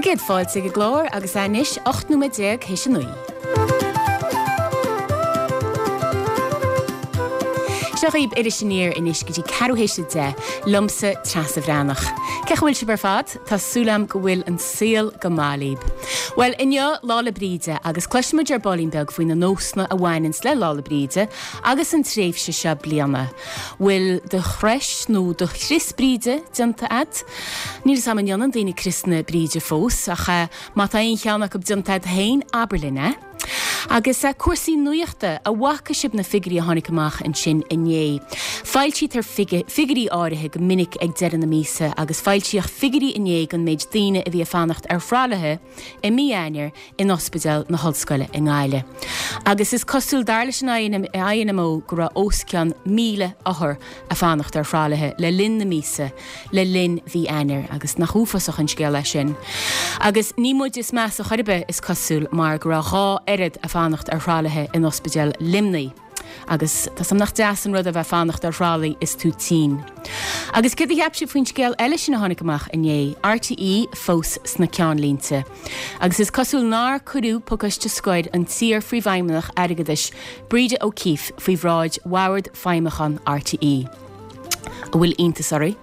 Tá céad fáilte ag an gclár agus é anois 18 nóiméad théis a 9. Seo dhaoib Iris Aniar anois go dtí ceathrú théis a 10, liomsa Treasa Bhreathnach. Cén chaoi a bhfuil sibh ar fad? Tá súil agam go bhfuil an saol go maith libh. Bhuel, inniu Lá 'le Bríde agus cloisfidh muid ar baillín beag faoi na nósanna a bhaineanns le Lá 'le Bríde agus an tréimhse seo bliana. Bhfuil do chrois nó do chrios Bríde déanta a'd? Níl 'fhios a'm an ndéanann daoine criosanna Bríde fós, ach má tá aon cheann acu déanta a'd féin, abair linn é. Agus cúrsaí nuachta, an bhfaca sibh na figiúirí a tháinig amach ansin inné? Foilsítear figiúirí áirithe go minic ag deireadh na míosa agus foilsíodh figiúirí inné don méid daoine a bhí ag fanacht ar thralaithe i mí Eanáir in Ospidéal na hOllscoile i nGaillimh. Agus is cosúil, dar leis an INMO, go raibh os cionn 1,000 othar ag fanacht ar thralaithe le linn na míosa, le linn mhí Eanáir, agus nach uafásach an scéal é sin. Agus ní muid is measa chor ar bith, is cosúil, mar go raibh dhá oiread ag fanacht ar thralaithe in Ospidéal Luimnigh. Agus tá 's a'm nach deas an rud a bheith fanacht ar thralaí is tú tinn. Agus céard a cheap sibh faoin scéal eile sin a tháinig amach inné, RTÉ fós sna ceannlínte. Agus is cosúil nár cuireadh pacáiste scoir an t-iar-phríomhfheidhmeannach airgeadais Breda O'Keeffe faoi bhráid Bhord Feidhmiúcháin RTÉ. An bhfuil iontas oraibh?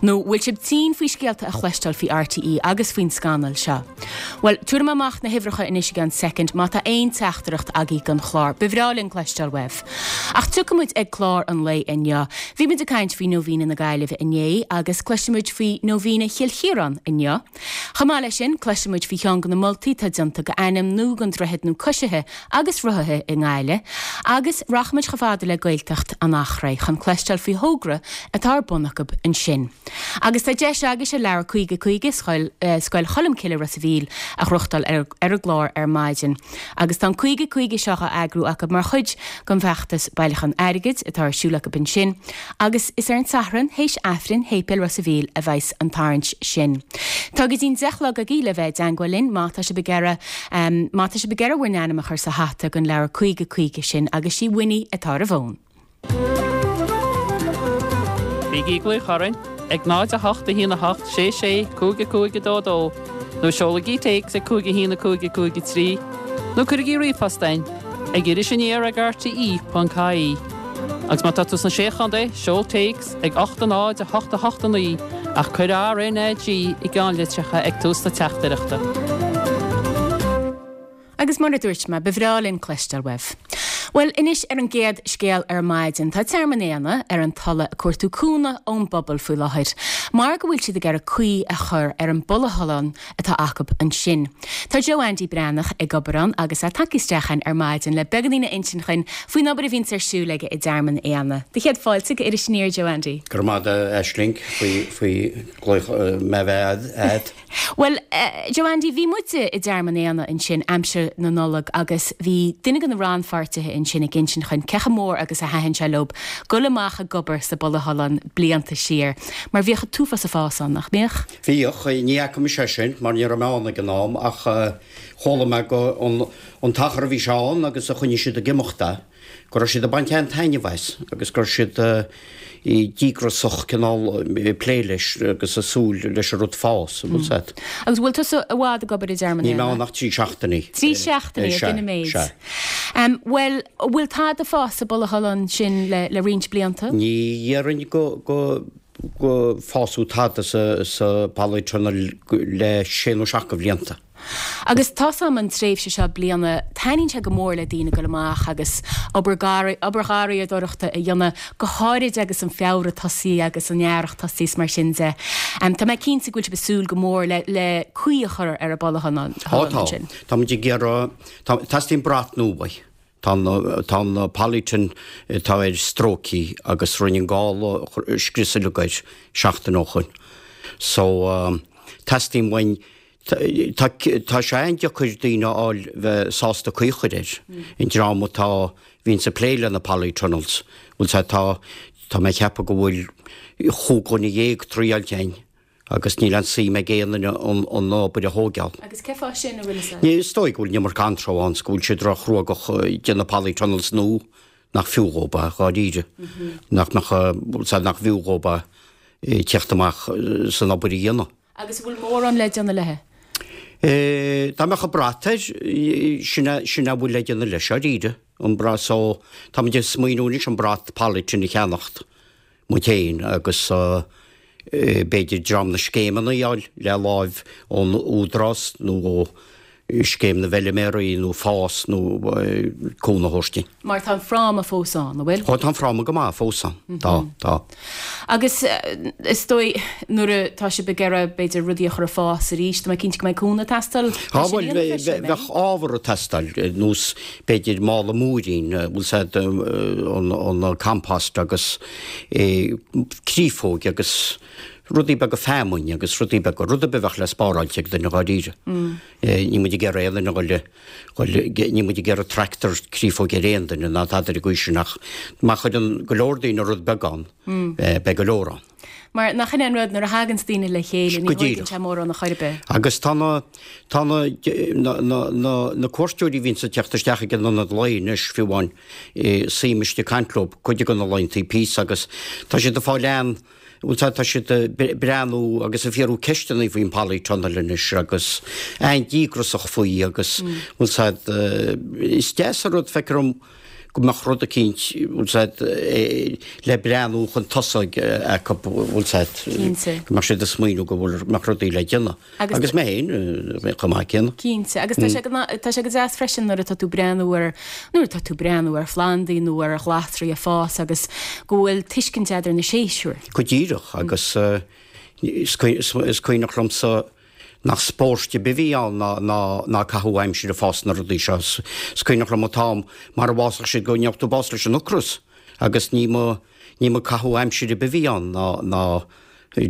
Nó bhfuil sibh tinn faoi scéalta a chloisteáil faoi RTÉ agus faoin scannal seo? Bhuel, tabharfaidh mé amach na huimhreacha anois i gceann soicind má tá aon teachtaireacht agaibh don chlár. Ba bhreá linn cloisteáil uaibh. Ach tiocfaidh muid ag clár an lae inniu. Bhí muid ag caint faoi Nóibhíne na Gaillimhe inné agus cloisfidh muid faoi Nóibhíne Chill Chiaráin inniu. Chomh maith leis sin, cloisfidh muid faoi cheann de na moltaí atá déanta go ainm nua don droichead nó coisithe agus rothaithe i nGaillimh, agus rachaidh muid chomh fada le Gaeltacht an Eachréidh chun cloisteáil faoi thogra atá ar bun acu ansin. Agus tá deis agaibhse leabhar 50 50 Scoil Scoil Cholmcille Ros a' Mhíl a ghnóthachtáil ar ar an gclár ar maidin. Agus tá an 50 50 seo á eagrú acu mar chuid den bhfeachtas bailiúchán airgid atá ar siúl acu ansin agus is ar an Satharn théis Aifrinn Shéipéal Ros a' Mhíl a bheas an tarraingt sin. Tá go dtí'n 10 a chlog agaibh le bheith i dteangmháil linn má tá sibh ag iarraidh má tá sibh ag iarraidh bhur n-ainm a chur sa hata don leabhar 50 50 sin agus sí Winnie atá ar an bhfón. Bígí ag glaoch orainn ag 0 8 1 8 6 6 5 5 2 2 nó seolaigí téacs ag 5 1 5 5 3 nó cuirigí ríomhphost chugainn ag irisaniar ag rte.ie. Agus má tá tú sna Sé Chontae, seol téacs ag 8 0 8 8 9 ach cuir RNAG i gceannlitreacha ag tús na teachtaireachta. Agus mar a dúirt mé, ba bhreá linn cloisteáil uaibh. Bhuel, anois ar an gcéad scéal ar maidin, tá Tearmann Éanna ar an Tulaigh ag cuartú cúnamh ón bpobal faoi láthair, mar go bhfuil siad ag iarraidh caoi a chur ar an bpolythunnel atá acu ansin. Tá Joe Andy Breathnach ag obair ann agus é tagtha isteach chugainn ar maidin le beagáinín a insint dhuinn faoin obair a bhíonns ar siúl aige i dTearmann Éanna. Do chéad fáilte go Iris Aniar, Joe Andy. Go raibh maith agat, Aisling, faoi faoi glaoch mé bheith a'd. Bhuel, Joe Andy, bhí muide i dTearmann Éanna ansin aimsir na Nollag agus bhí duine de na rannpháirtithe ansin ag insint dhuinn cé chomh mór agus a thaitin sé leob goil amach ag obair sa bpolythunnel blianta siar, mar bhíodh an t-uafás ag fás ann, nach mbíodh? Bhíodh, ní fhaca mise é sin mar ní raibh mé ann ag an am ach chuala mé go an t-achar a bhí sé ann agus a choinnigh siad ag imeacht é. go raibh siad ag baint an-taitneamh as agus go raibh siad díograsach cineál ag plé leis agus ag súil leis an rud fás, an bhfuil 's a'd. Agus bhfuil tusa i bhfad ag obair i dTearmann Níl mé ann ach trí seachtainí. Trí seachtainí, ag an méid. Sea. Bhuel, an bhfuil tada ag fás sa bpolythunnel sin le le roinnt blianta? Ní dhéarfainn go go go fásadh tada sa sa polytunnel le sé nó seacht de bhlianta. Agus tá's a'm an tréimhse seo bliana, taitníonn sé go mór le daoine goil amach agus obair obair gharraíodóireachta a dhéanamh, go háirid agus an Feabhra tosaithe agus an earrach tosaithe is mar sin de. Tá mé cinnte go bhfuil sibh ag súil go mór le le caoi a chur ar an bpolythunnel Tá, tá. ansin. Tá muid ag iarraidh, tá, teastaíonn brat nua uaidh. Tá an, tá an polytunnel atá air stróicthe agus rinne an gála scrios uilig air seachtain ó shoin. So, teastaíonn uainn, Tá tá sé an-deacair daoine a fháil bheith sásta caoi a chur air. An dream atá, bhíonns ag plé le na polytunnels, bhfuil 's a'd, tá, tá mé ag ceapadh go bhfuil chúig dhuine dhéag triáilte a'inn agus níl aon suim ag aon duine an an obair a thóigeáil. Agus cén fáth sin, an bhfuil 'fhios a'd? Ní, is dóigh go bhfuil an iomarca anró ann 's go bhfuil siad ró-chruógach ag déanamh polytunnels nua nach fiú dhóib é, dháiríre. Nach mbeadh, bhfuil 's a'd, nach bhfiú dhóib é teacht amach 's an obair a dhéanamh. Agus an bhfuil mórán le déanamh léi? Dá mbeadh an brat air, sin é, sin é a bhfuil le déanamh leis, dáiríre, an brat so, táimid ag smaoineamh anois an brat polythene a cheannacht muid féin agus b'fhéidir dream na scéimeanna a fháil le láimh ón Údarás nó ó Scéim na bhFeiliméaraí nó FÁS nó cúnamh a thabhairt dúinn. Mar tá an fráma fós ann, an bhfuil? Ó tá an fráma go maith fós ann, tá, tá. Agus is dóigh nuair atá sibh ag iarraidh b'fhéidir rudaí a chur ag fás arís, tá mé cinnte go mbeidh cúnamh ag teastáil Tá, bhuel, bheadh ábhar ag teastáil, nós b'fhéidir mála múirín, bhfuil 's a'd, an compost agus créafóig agus rudaí beaga feamainn agus rudaí beaga, rud ar bith a bheadh le spáráilt ag duine dháiríre. Níl muid ag iarraidh aon duine a dhul, dhul, níl muid ag iarraidh tractor créafóige ar aon duine ná tada ar an gcaoi sin ach má chuireann go leor daoine rud beag ann, beidh go leor ann. Mar nach in é an rud, nuair a thaganns daoine le chéile, ní Go thóigeann díreach. sé mórán a chor ar bith. Agus tá na, tá na, na, na, na, na cuairteoirí a bhíonns ag teacht isteach ag an ionad lae anois, fiú amháin, suím istigh ag caint leo, cuid de na laethantaí píosa agus tá siad ag fáil an, bhfuil 's a'd, tá siad ag breathnú agus ag fiafraí ceisteanna faoin polytunnel anois agus an-díograsach faoi agus bhfuil 's a'd, is deas an rud, feictear dom go mbeadh rud eicínt, bhfuil 's a'd, le breathnú chun tosaigh acu, bhfuil 's a'd, go mbeadh siad ag smaoineamh go bhfuil, mbeadh rudaí le déanamh. Agus mé féin chomh maith céanna. Cinnte. Agus tá sé go, tá sé go deas freisin nuair atá tú breathnú ar, nuair atá tú breathnú ar phlandaí nó ar ghlasraí ag fás agus go bhfuil tuiscint a'd ar na séasúir. Go díreach. Agus is cuimhneach liomsa nach spóirt ar bith a bhí ann ná, ná, ná caitheamh aimsire ag fás na rudaí seo. Is cuimhneach liom an t-am mar a bhfásfadh siad go ngeobhadh tú bás leis an ocras agus ní mba, ní mba caitheamh aimsire ar bith a bhí ann ná, ná,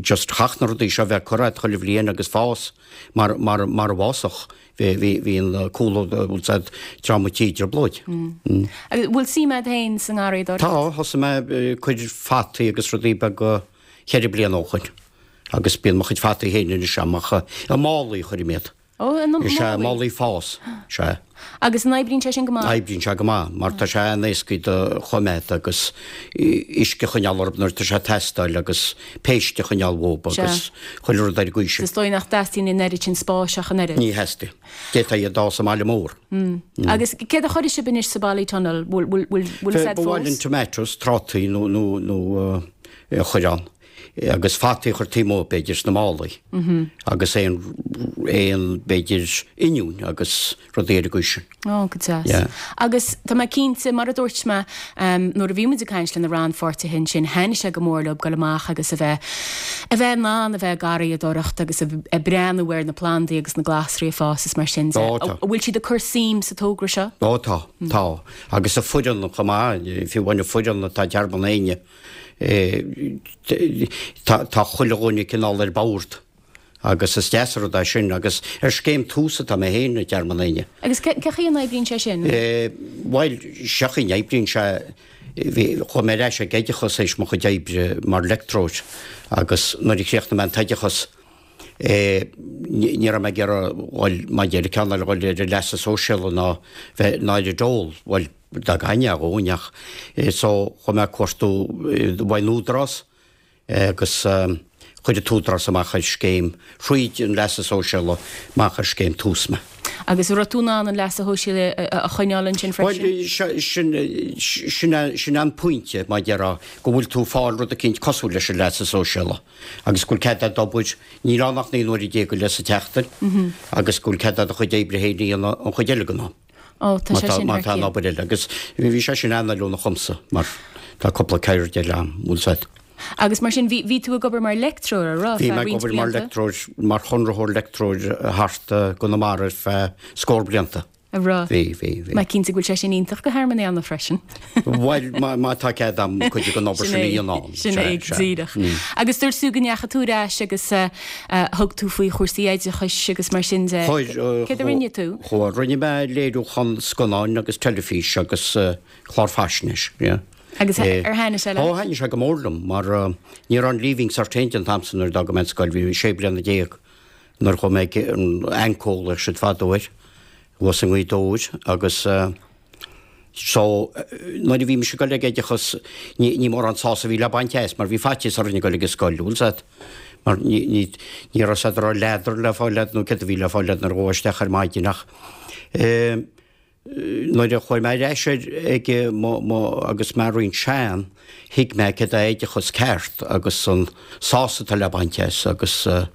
just chaithfeadh na rudaí seo a bheith curtha agat chuile bhliain agus fás mar, mar, mar a bhfásfadh. Bhí, bhí, bhí an cúl, bhfuil 's a'd, dream an tí i dtrioblóid. Agus bhfuil suim a'd féin sa ngarraíodóireacht? Tá, thosaigh mé ag cur fataí agus rudaí beaga cheithre bliana ó shoin agus bíonn mo chuid fataí féin anois a'm ach i málaí a chuirim iad. Ó, i málaí? Is ea, málaí fás, sea. Agus an oibríonn sé sin go maith? Oibríonn sé go maith, mar tá sé an-éascaí do choimeád agus uisce a choinneáil orthu nuair atá sé ag teastáil agus péist a choinneáil uathu agus chuile rud ar an gcaoi sin. Is dóigh nach dteastaíonn an oiread sin spáis ach an oiread. Ní theastaíonn. D'fhéadfá iad a fhás i mbaile mór. Agus céard a chuirfidh sibh anois sa Polytunnel? Bhfuil fhios a'd fós? Ba mhaith linn tomatoes, trátaí nó a chur ann. agus fataí a chur taobh amuigh, b'fhéidir, sna málaí agus aon, aon, b'fhéidir, oinniúin agus rudaí ar an gcaoi sin. Ó, go deas. Yeah. Agus tá mé cinnte, mar a dúirt mé, nuair a bhí muid ag caint le na rannpháirtithe ansin, thaitnigh sé go mór leo dul amach agus a bheith, a bheith in ann a bheith ag garraíodóireacht agus a breathnú ar na plandaí agus na glasraí ag fás is mar sin de. Ó, tá. An bhfuil siad ag cur suim sa togra seo? Ó, tá, tá. Agus an foireann chomh maith, fiú amháin an foireann atá i dTearmann Éinne, Tá chuile dhuine cineál ar bord agus is deas an rud é sin agus ar scéim Tús atá mé féin i dTearmann Éinne. Agus cé chaoi a n-oibríonn sé sin? Bhuel, seo chaoi a n-oibríonn sé, chuaigh mé ar ais ag oideachas théis mo chuid oibre mar leictreoir agus nuair a chríochnaigh mé an t-oideachas, ní raibh mé ag iarraidh dhul maidir le ceann eile dhul ar an leasa sóisialta ná bheith ná ar an dól, bhuel, dá gcaithfinn é a dhóthain ach so chuaigh mé ag cuartú uaidh an Údarás agus chuir an tÚdarás amach ar scéim thríd an leasa sóisialta amach ar scéim Tús mé. Agus an raibh tú in ann an leasa shóisialaigh a choinneáil ansin freisin? Bhuel, sin, sin, sin an pointe, mar a déarfá, go bhfuil tú ag fáil rud eicínt cosúil leis an leasa sóisialta. agus go bhfuil cead a'd obair, níl ann ach 19 nuaire go leith sa tseachtain, agus go bhfuil cead a'd do chuid oibre féin a dhéanamh an chuid eile den am. Ó, tá Má sé tá, sin má thar tá an cionn. obair eile. Agus bhí sé sin an-fheiliúnach dhomsa, mar tá cúpla ceird eile a'm, bhfuil 's a'd. Agus mar sin, bhí, bhí tú ag obair mar leictreoir, a raibh, Bhí feadh mé ag roinnt obair mar blianta? leictreoir, mar chonraitheoir leictreoir thart i gConamara ar feadh scór blianta. A raibh. Bhí, bhí, bhí. Mé cinnte go bhfuil sé sin iontach do Thearmann Éanna freisin. Bhuel, má tá cead a'm cuid den obair Sin sin a é, dhéanamh ann. sin Sea, é, sea. díreach. Agus dúirt tú go ndeachaigh tú ar ais agus thug tú faoi chúrsaí oideachais agus mar sin de. Chuir, Céard a rinne tú? Chuir, rinne mé léiriúchán scannáin agus teilifís agus clár faisnéis, yeah. Agus ar thaitnigh sé leat? Ó, thaitnigh sé go mór liom, mar ní raibh an Leaving Cert féin an t-am san nuair a d'fhág mé an scoil, bhí mé sé bliana déag. Nuair a chuaigh mé ag an AnCO a ghlaodh siad fadó air, thuas i nGaoth Dobhair agus so nuair a bhí mise ag dul ag oideachas ní ní mórán sásamh a bhí le baint as mar bhí faitíos orainn ag dul ag an scoil, bhfuil 's a'd? Mar ní, ní, ní raibh 's a'd an raibh leadar le fáil a'd nó céard a bhí le fáil a'd nuair a ghabhfá isteach ar maidin ach eh, nuair a chuaigh mé ar ais ar ag mo, mo, agus mé roinnt sean, thuig mé céard é oideachas ceart agus an sásamh atá le baint as agus eh,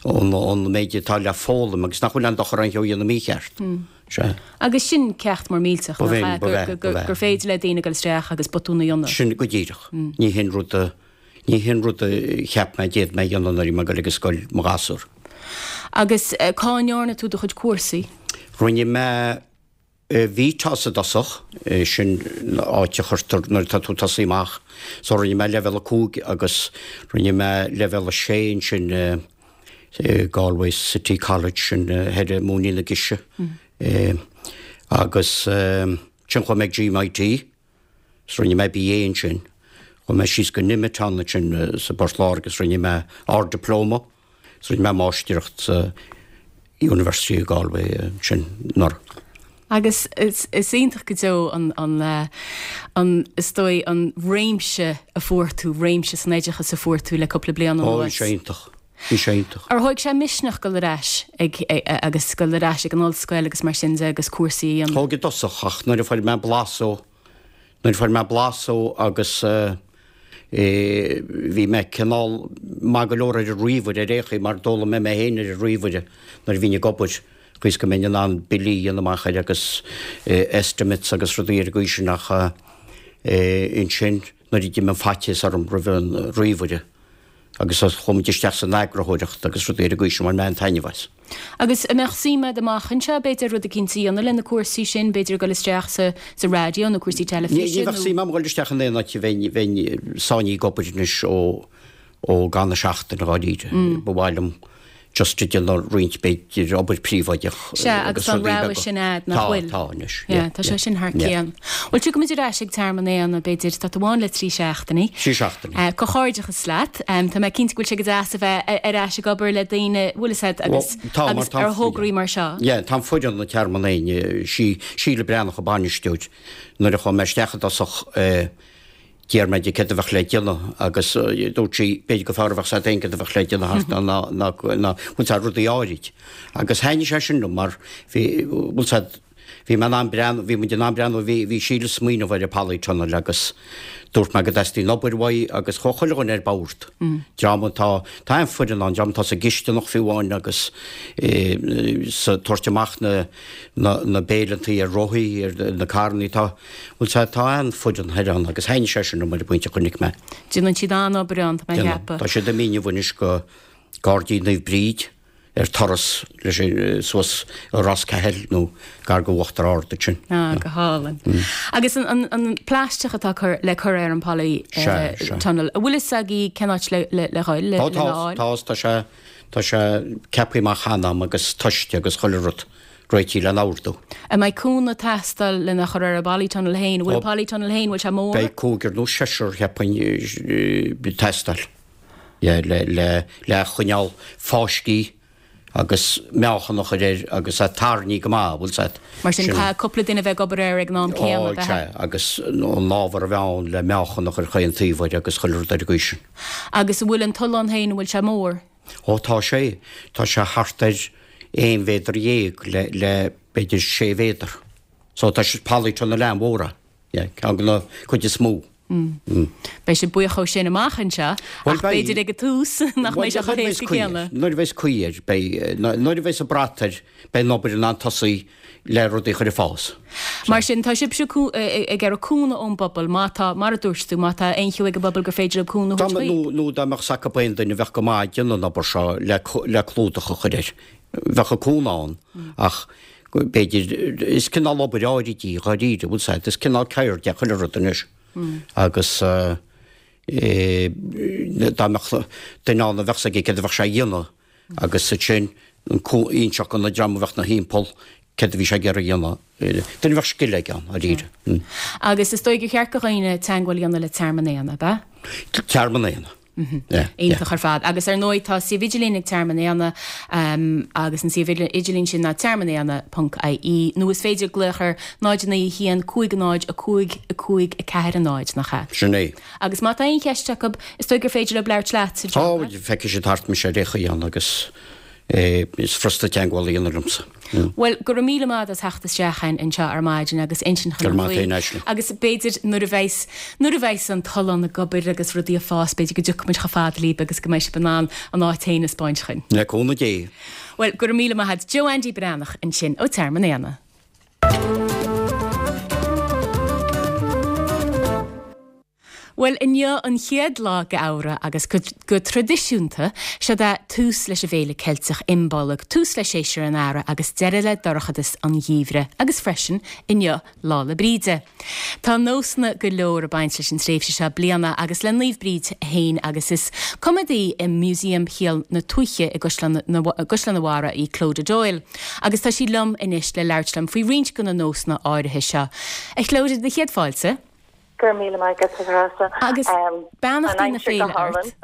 an, an méid atá le foghlaim agus nach bhfuil aon dochar aon cheo a dhéanamh mícheart. Sea. Agus sin ceacht mór millteach, nach ea, gur féidir le daoine dul isteach agus botún a dhéanamh. Sin go díreach. Ní hin rud a, ní hin rud a cheap mé d'fhéadfadh mé a dhéanamh nuair a bhí mé ag dul ag an scoil mo ghasúr. Agus cá ndearna tú do chuid cúrsaí? Rinne mé VTOS i dtosach, sin áit a chuirtear nuair atá tú ag tosaí amach. So rinne mé leibhéal 5 agus rinne mé leibhéal 6 ansin i Galway City College sin thoir i Móinín na Gise. Agus ansin chuaigh mé ag GMIT is rinne mé BA ansin. Chuaigh mé síos go Nemeton ansin sa bPort Láirge agus rinne mé Ard-Dioplóma is rinne mé Máistreacht sa University of Galway ansin anuraidh. Agus is iontach go deo an, an, an, is dóigh, an réimse a fuair tú, réimse san oideachas a fuair tú le cúpla bliain anuas. Ó, bhí sé iontach. Bhí sé iontach. Ar thóig sé misneach dul ar ais ag, agus dul ar ais ag an ollscoil agus mar sin de agus cúrsaí a dhéanamh? Thóg i dtosach ach nuair a fuair mé blas ó, nuair a fuair mé blas ó agus eh, bhí mé cineál maith go leor ar an ríomhaire ar aon chaoi mar d'fhoghlaim mé mé féin ar an ríomhaire nuair a bhínn ag obair. Chaoi is go mbeinn in ann billí a dhéanamh amach air agus estimates agus rudaí ar an gcaoi sin ach ansin nuair a d'imigh an faitíos orm roimh an ríomhaire agus chuaigh muid isteach san eagarthóireacht agus rudaí ar an gcaoi sin bhain mé an-taitneamh as. Agus an mbeadh suim agat amach anseo b'fhéidir rud eicínt a dhéanamh le na cúrsaí sin, b'fhéidir dul isteach sa sa raidió nó cúrsaí teilifíse nó. Ní bheadh suim agam dul isteach in aon áit a bheinn bheinn sáinnithe ag obair anois ó ó gan a seachtain dháiríre. Ba mhaith liom just ag déanamh roinnt b'fhéidir obair príobháideach Sea, agus tá an rogha sin a'd, nach bhfuil? Tá, tá anois. Yeah, tá sé sin thar cionn. Bhuel, tiocfaimid ar ais ag Tearmann Éanna, b'fhéidir, tá tú ann le 3 seachtainí. 3 seachtainí. Comhghairdeachas leat. Tá mé cinnte go bhfuil sé go deas a bheith ar ais ag obair le daoine, bhfuil fhios a'd, agus agus ar thograí mar seo. Yeah, tá an foireann ag Tearmann Éanna, sí Síle Breathnach an bainisteoir, nuair a chuaigh mé isteach i dtosach, D'iarr mé di céard a bheadh le déanamh agus dúirt sí b'fhéidir gur fearr a bheadh 's a'd féin céard a bheadh le déanamh thart ná ná ná ná bhfuil 's a'd rudaí áirid. Agus thaitnigh sé sin liom mar bhí bhfuil 's a'd bhí mé in ann breathnú bhí muid in ann breathnú bhí bhí Síle ag smaoineamh ar an polytunnel agus dúirt mé go dteastaíonn obair uaidh agus chuaigh chuile dhuine ar bord. Dream atá tá an-fhoireann ann dream atá sa gcisteanach fiú amháin agus sa tabhairt amach na na na béileantaí ar rothaí ar na carrannaí tá Bhuel tá, tá an-fhoireann thoir ann agus thaitnigh sé sin liom ar an bpointe a chonaic mé. Déanann siad an-obair ann, tá mé ag ceapadh. Tá siad imithe inniu anois go Gairdín Naomh Bríd ar turas leis an suas i Ros Cathail nó gar go Uachtar Ard ansin. Ah, go hálainn. Agus an, an, an plaisteach atá cur, le cur ar an poly eh, Sea, sea. tunnel, an bhfuil fhios agaibh cén áit le, le, le dhul, le, Tá, tá, lena fháil? tá, tá sé, tá sé ceaptha amach cheana agam agus toiste agus chuile rud. réitithe lena ordú. An mbeidh cúnamh ag teastáil lena chur ar an bpolytunnel féin? An bhfuil an polytunnel féin, bhfuil sé mór? Beidh cúigear nó seisear, cheapfainn, ag teastáil le le le choinneáil fáiscthe agus meáchan a chur air agus é tarraingthe go maith, bhfuil 's a'd. Mar sin, caithfidh cúpla duine a bheith ag obair air ag an am céanna, ab ea? Sea, agus an ábhar a bheith ann le meáchan a chur chaon taobh air agus chuile rud ar an gcaoi sin. Agus an bhfuil an tollán féin, an bhfuil sé mór? Ó tá sé, tá sé thart ar aon mhéadar dhéag le, le b'fhéidir sé mhéadar. So tá sé polytunnel an-mhór é. Yeah, ceann de na cuid is mó. Mm. Beidh sibh buíoch ó sin amach anseo, ach b'fhéidir ag an tús nach mbeidh sé chomh héasca céanna. Nuair a bheas caoi air, beidh, nuair a bheas an brat air, beidh an obair in ann tosaí le rudaí a chur ag fás. Mar sin, tá sibhse ag iarraidh cúnamh ón bpobal, má tá, mar a dúirt tú, má tá aon cheo ag an bpobal gur féidir leo cúnamh a thabhairt chuig. Nó dá mbeadh 's acu aon duine a bheadh go maith ag déanamh an obair seo le le clúdach a chur air, bheadh an cúnamh ann ach b'fhéidir, is cineál obair áirid í, dháiríre, bhfuil 's a'd, is cineál ceird é chuile rud anois agus dá mbeadh duine ann a bheadh 's aige céard a bheadh sé a dhéanamh, Agus ansin inseacht do na dream a bheadh 'na thimpeall céard a bhí sé ag iarraidh a dhéanamh. Duine a bheadh scil aige ann, dáiríre. Agus is dóigh gur cheart do dhaoine teagmháil a dhéanamh le Tearmann Éanna, ab ea? Tearmann Éanna. Yeah. Iontach ar fad. Agus ar ndóigh tá suíomh idirlín ag Tearmann Éanna agus an suíomh idirlín sin ná tearmannéanna ponc ie nó is féidir glaoch ar 0 9 1 5 0 5 5 4 0, nach ea? Sin é. Agus má tá aon cheist acu, is dóigh gur féidir leo labhairt leat, a Joe, Tá, feicfidh siad thart mise ar aon chaoi ann agus is furasta teagmháil a dhéanamh liomsa. Bhuel, go raibh míle maith agat as theacht isteach chugainn anseo ar maidin agus insint Go raibh dhúinn maith faoi. agat féin, Aisling. Agus b'fhéidir nuair a bheas, nuair a bheas an tollán ag obair agus rudaí ag fás, b'fhéidir go dtiocfaidh muid chomh fada libh agus go mbeidh sibh in ann an áit féin a 'spáint dhuinn. Le cúnamh Dé. Bhuel, go raibh míle maith agat. Joe Andy Breathnach ansin ó Tearmann Éanna. Bhuel, inniu an chéad lá de Fheabhra agus go traidisiúnta, seod é tús leis an bhféile Ceilteach Imbolg, tús le séasúr an Earraigh agus deireadh le dorchadas an gheimhridh agus freisin, inniu Lá 'le Bríde. Tá nósanna go leor ag baint leis an tréimhse seo bliana agus le Naomh Bríd féin agus is coimeádaí i Músaem Shaol na Tuaithe i gCaisleán an Bharraigh í Clodagh Doyle agus tá sí liom anois le labhairt liom faoi roinnt de na nósanna áirithe seo. A Chlodagh, do chéad fáilte. Go raibh míle maith agat, a Threasa. Agus beannachtaí na féile ort.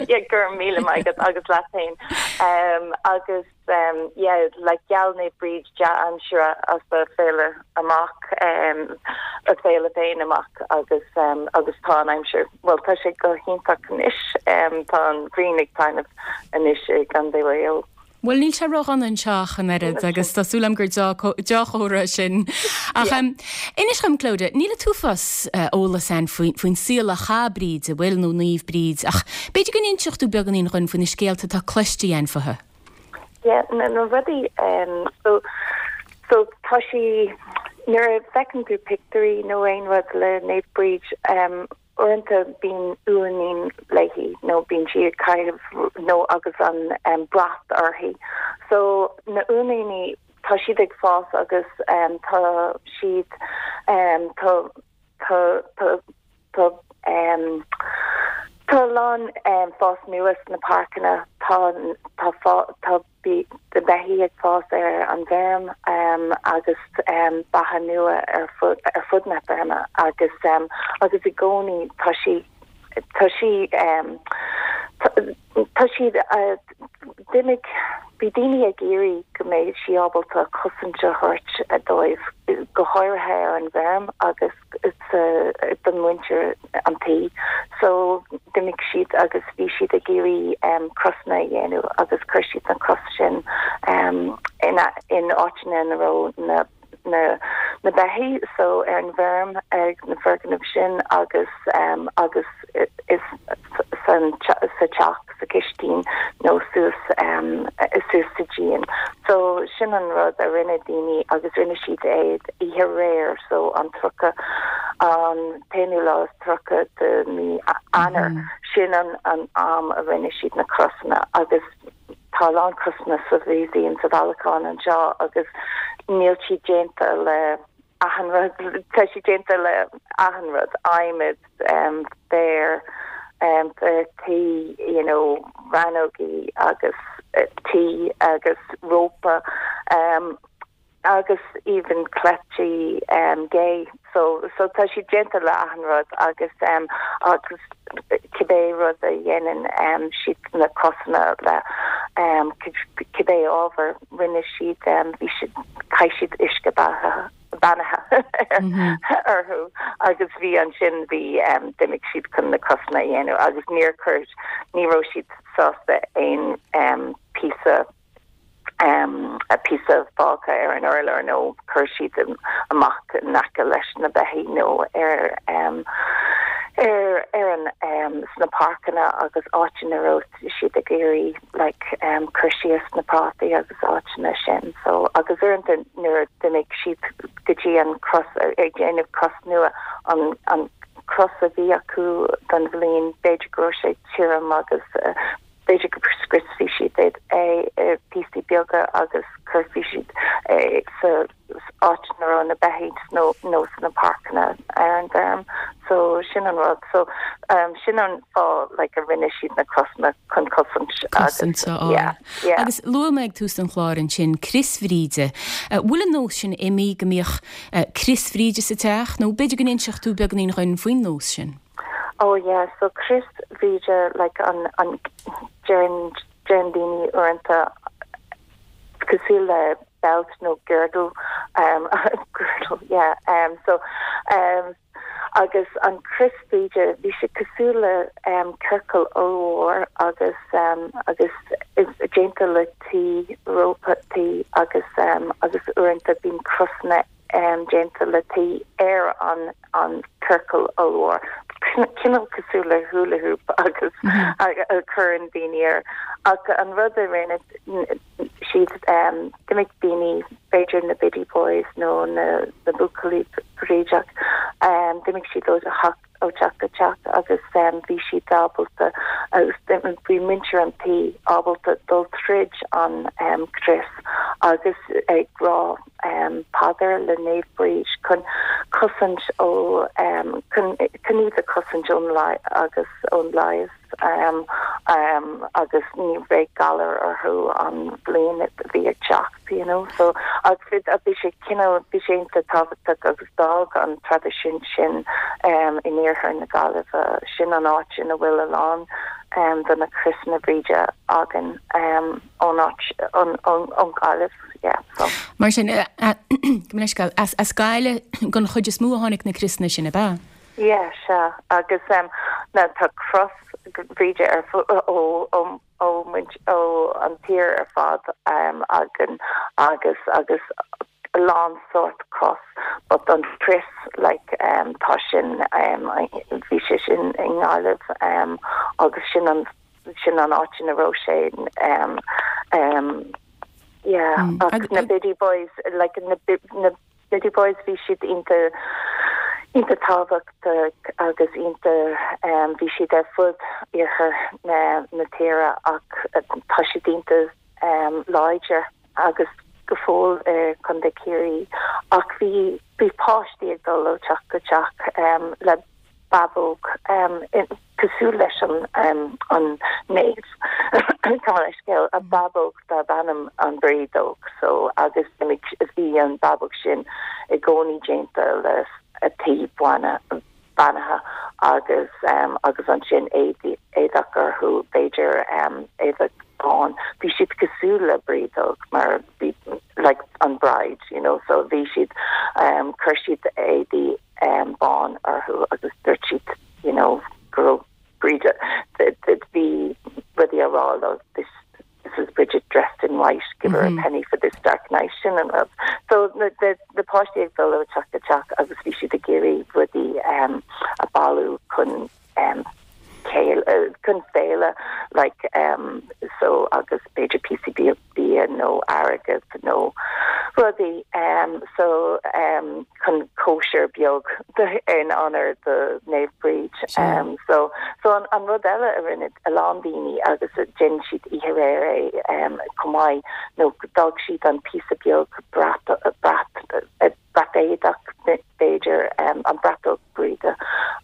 Yeah, go raibh míle maith agat agus leat féin. Agus yeah, like gheall Naomh Bríd dea-aimsire as a féile amach, a féile féin amach agus agus tá an aimsir, bhuel tá sé go hiontach anois, tá an ghrian ag taitneamh anois i gContae Mhaigh Eo. Bhuel, níl sé ródhona anseo ach an oiread agus tá súil agam gur deá-chomhartha é sin. Ach inis dhom, Clodagh, níl an t-uafás eolas againn faoin saol a chaith Bríd, an bhfuil, nó Naomh Bríd, ach b'fhéidir go n-inseodh tú beagáinín dhúinn faoi na scéalta atá cloiste againn fúithi. Yeah, na rudaí, so, so tá sí, nuair a fheiceann tú pictiúirí nó aon rud le Naomh Bríd, Uaireanta bíonn uainín léi nó bíonn sí ag caitheamh nó agus an brat uirthi. So na uainíní tá siad ag fás agus tá siad tá tá tá tá tá a lán fás nua sna páirceanna tá tá tá Bhí na beithígh ag fás ar an bhfeirm agus beatha nua ar fud na feirme agus agus i gcónaí tá sí tá sí tá siad d'imigh bhí daoine ag iarraidh go mbeidh sí ábalta cosaint a thabhairt dóibh go háirithe ar an bhfeirm agus don mhuintir an tí. So d'imigh siad agus bhí siad ag iarraidh crosanna a dhéanamh agus chuir siad na cros sin in in áiteanna ina raibh na na na beithígh so ar an bhfeirm ag na foirgnimh sin agus agus is san sa teach sa chistin nó suas suas sa díon. So sin an rud a rinne daoine agus rinne siad é oíche aréir so an 30 an t-aonú lá is 30 de mí Eanáir sin an an am a rinne siad na crosanna agus tá a lán crosanna sa mhúsaem sa bhailiúchán anseo agus níl siad déanta le achan rud, tá siad déanta le achan rud, adhmad, féar, féar tí, you know, rannógaí agus tí agus rópa agus even cleití gé. So, so tá siad déanta le achan rud agus agus cibé rud a dhéanann siad na crosanna le cibé ábhar. Rinne siad, bhí siad, chaith siad uisce beatha, beannaithe orthu agus bhí ansin, bhí, d'imigh siad chun na crosanna a dhéanamh agus níor chuir, ní raibh siad sásta aon píosa, píosa fágtha ar an urlár nó chuir siad amach in aice leis na beithígh nó ar, ar, ar an, sna páirceanna agus áiteanna a raibh siad ag iarraidh like cur síos na prátaí agus áiteanna sin so agus uaireanta nuair a d'imigh siad go dtí an cros ag déanamh cros nua an an cros a bhí acu don bhliain b'fhéidir go raibh sé tirim agus b'fhéidir go scriosfaidh siad é i píosaí beaga agus cuirfidh siad é sa áit ina raibh na beithígh nó nó sna páirceanna ar an bhfeirm so sin an rud so um, sin an fáth like, a rinne siad na crosanna chun cosaint cosaint a fháil. Yeah, yeah. Agus luaigh mé ag tús an chláir ansin Crios Bhríde. Bhfuil an nós sin imithe go mbíodh Crios Bhríde sa teach nó b'fhéidir go n-inseodh tú beagáinín dhúinn faoin nós sin? Oh yeah, so Crios Bhríde like an an deireann deireann daoine uaireanta cosúil le belt nó girdle um girdle yeah um so um agus an Crios Bhríde bhí sé cosúil le um ciorcal ollmhór agus um agus is déanta le tuí rópa tuí agus um agus uaireanta bíonn crosanna déanta le tuí ar an an ciorcal ollmhór, cineál cosúil le hula hoop agus a chuireann daoine air. Ach an rud a rinne siad, d'imigh daoine, b'fhéidir na Biddy Boys nó na buachaillí brídeach, d'imigh siad ó theach ó teach go teach agus bhí siad ábalta agus bhí muintir an tí ábalta dul tríd an crios agus ag rá paidir le Naomh Bríd chun cosaint ó chun iad a chosaint ón agus ón leigheas. Agus ní bheidh galar orthu an bhliain a bhí ag teacht, you know. So, agus bhí sé cineál, bhí sé iontach tábhachtach agus d'fhág an traidisiún sin in iarthar na Gaillimhe, sin an áit ina bhfuil a lán de na criosanna Bríde againn ón áit, ón Ghaillimh, yeah, so. Mar sin, gabh mo leithscéal, as Gaillimh den chuid is mó a tháinig na criosanna sin, ab ea? Yeah, sea. Agus em now tá cros Bhríde ar fu ó ó ó muint ó an tír ar fad em againn agus agus a lán sórt cros but an crios like em tá sin em bhí sé sin i nGaillimh em agus sin an sin an áit ina raibh sé em em yeah ach na Biddy Boys like na na Biddy Boys, bhí siad iontach, iontach tábhachtach agus iontach, bhí siad ar fud iarthar na, na tíre ach tá siad iontach láidir agus go fóill i Contae Ciarraí ach bhí, bhí páistí ag dul ó teach go teach le bábóg cosúil leis an an naomh gabh mo leithscéal, a bábóg darb ainm an Brídeog so agus bhí an bábóg sin i gcónaí déanta le tuí beannaithe agus agus ansin éadach orthu b'fhéidir éadach bán bhí siad cosúil le brídeog mar bhí like an bride you know so bhí siad chuir siad éadaí bán orthu agus dúirt siad you know go raibh Bríd bhí rudaí á rá leo this this is Bridget dressed in white give her a penny for this dark night sin an rud. So na na páistí ag dul ó teach go teach agus bhí siad ag iarraidh rudaí um, a bailiú chun um, chun féile like um, so agus b'fhéidir píosaí bia bia nó airgead nó rudaí um, so um, chun cóisir beag in onóir do Naomh Bríd. Um, so, so an, an rud eile a rinne a lán daoine agus déanann siad oíche aréir é um, chomh maith nó d'fhág siad an píosa beag brat, brat, brat éadach b'fhéidir um, an bratóg Bríde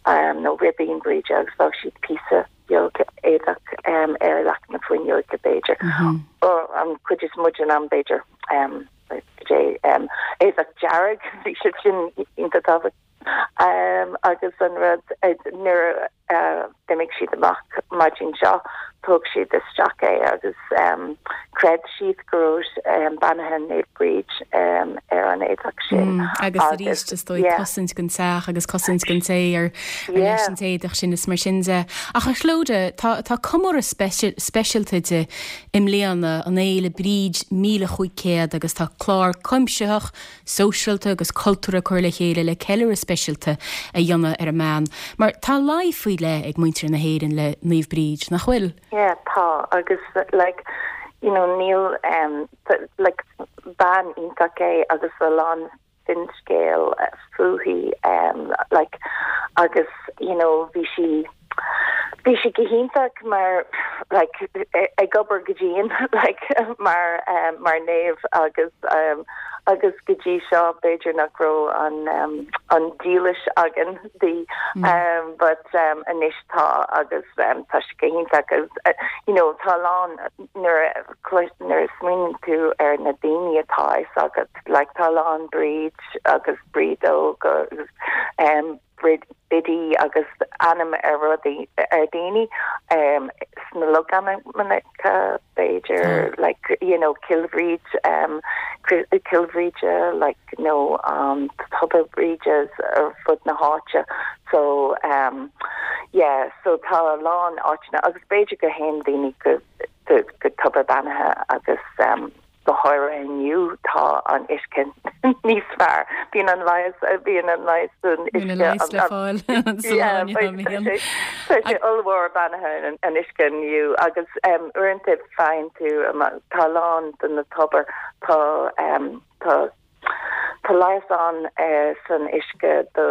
um, nó ribín Bríde agus d'fhág siad píosa beag éadach um, ar leac na fuinneoige b'fhéidir. Mm -hmm. An chuid is mó den am b'fhéidir um, um, éadach dearg bhí sé sin iontach tábhachtach. Um, agus an rud nuair a d'imigh siad amach maidin seo thug siad isteach é agus um, chreid siad go raibh um, beannaithe Naomh Bríd um, ar an éadach sin. Mm, agus arís is dóigh cosaint don teach agus cosaint don té ar leis an t-éadach sin is mar sin de. Ach a Chlodagh, tá, tá comóradh speisialta di i mbliana, an Fhéile Bríd 1500 agus tá clár cuimsitheach sóisialta agus cultúrtha curtha le chéile le ceiliúradh speisialta a dhéanamh ar an mbean, mar tá luí faoi leith ag muintir na hÉireann le Naomh Bríd, nach bhfuil? Yeah, tá, agus like, you know, níl, um, like, bean iontach é agus a lán finscéal fúithi, um, like, agus, you know, bhí sí, Bhí sí go hiontach mar like ag obair go dian like mar mar naomh agus agus go dtí seo b'fhéidir nach raibh an an dílis againn di but anois tá agus tá sí go hiontach agus you know tá a lán nuair a nuair a smaoiníonn tú ar na daoine atá fhios agat like tá a lán Bríd agus Brídóg agus. Biddy agus ainm ar rudaí ar daoine sna logainmneacha b'fhéidir like you know Cill Bhríd Cill Bhríde like nó Tobar Bríde ar fud na háite so yeah so tá a lán áiteanna agus b'fhéidir go théann daoine go go tobar beannaithe agus Go háirithe inniu tá an uisce níos fearr. Bíonn an leigheas, bíonn an leigheas san uisce. Bíonn an leigheas le fáil sa lá inniu, bíonn. Tá sé ollmhór beannaithe an uisce inniu agus uaireanta faigheann tú, tá a lán de na tobair, tá, tá, Tá leigheas ann san uisce do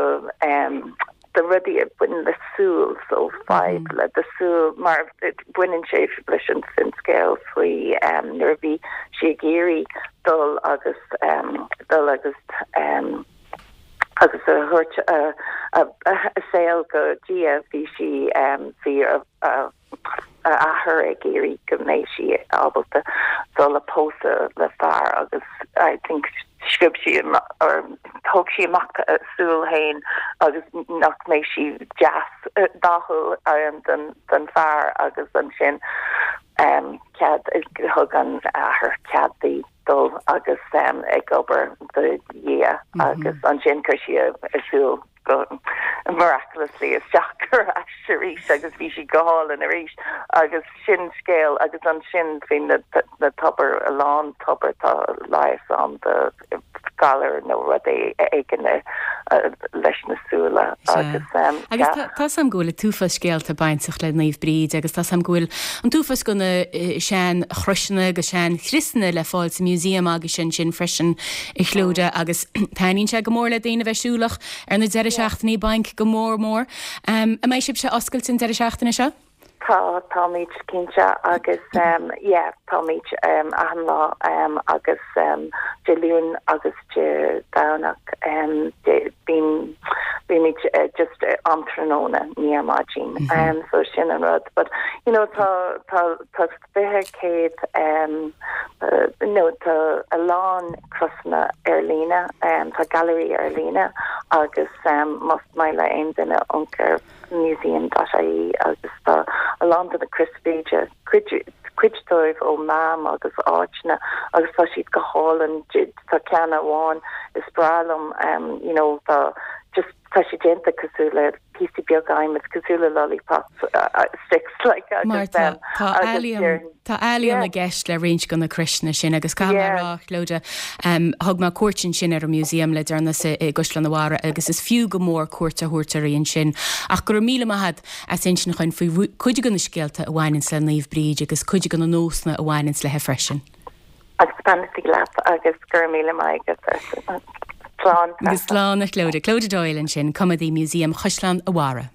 do rudaí a bhaineann le súil, so fadhb le do súil, mar baineann sé leis an finscéal faoi nuair a bhí sí ag iarraidh dul agus dul agus agus a thabhairt a saol go Dia, bhí sí bhí a a athair ag iarraidh go mbeidh sí ábalta dul a pósadh le fear agus I think sciob sí or thóg sí amach a súil féin agus nach mbeidh sí deas dathúil don don fear agus ansin cead thug an athair cead di dul agus ag obair do Dhia agus ansin chuir sí a súil go miraculously isteach ar ais arís agus bhí sí go hálainn arís agus sin scéal agus ansin faoi na na tobair a lán tobar tá leigheas ann do galar nó rud éigin leis na súile agus Agus tá 's a'm go bhfuil an t-uafás scéalta bainteach le Naomh Bríd agus tá 's a'm go bhfuil an t-uafás de na sean chroiseanna agus sean chriosanna le fáil sa museum agaibhse ansin freisin a Chlodagh agus taitníonn sé go mór le daoine a bheith siúlach ar na deireadh seachtainí bainc go mór mór. An mbeidh sibhse oscailte an deireadh seachtaine seo? Tá, táimid cinnte agus yeah, táimid achan lá agus Dé Luain agus Dé Domhnach bíonn, bímid just am tráthnóna, ní ar maidin. So sin an rud. But you know tá, tá, tá 20 100 nó tá a lán crosanna ar líne, tá gailearaí ar líne agus más maith le aon duine amharc ar museum.ie agus tá a lán de na Crois Bhríde, cuid cuid dóibh ó Mam agus áiteanna agus tá siad go hálainn, tá ceann amháin is breá liom you know tá just tá sé déanta cosúil le píosaí beaga adhmaid cosúil le lollipop sticks like agus Mar tá tá ealaíon tá ealaíon i gceist le roinnt de na croiseanna sin agus caithfidh mé a rá Clodagh thug mé cuairt ansin ar an museum le deireanas i gCaisleán an Bharraigh agus is fiú go mór cuairt a thabhairt uirthi ansin ach go raibh míle maith agat as insint dhúinn faoi cuid de na scéalta a bhaineanns le Naomh Bríd agus cuid de na nósanna a bhaineanns léi freisin. Agus beannachtaí leat agus go raibh míle maith agat. Slán. Agus slán a Chlodagh. Clodagh Doyle ansin, Coimeádaí Museum Chaisleán a' Bharraigh.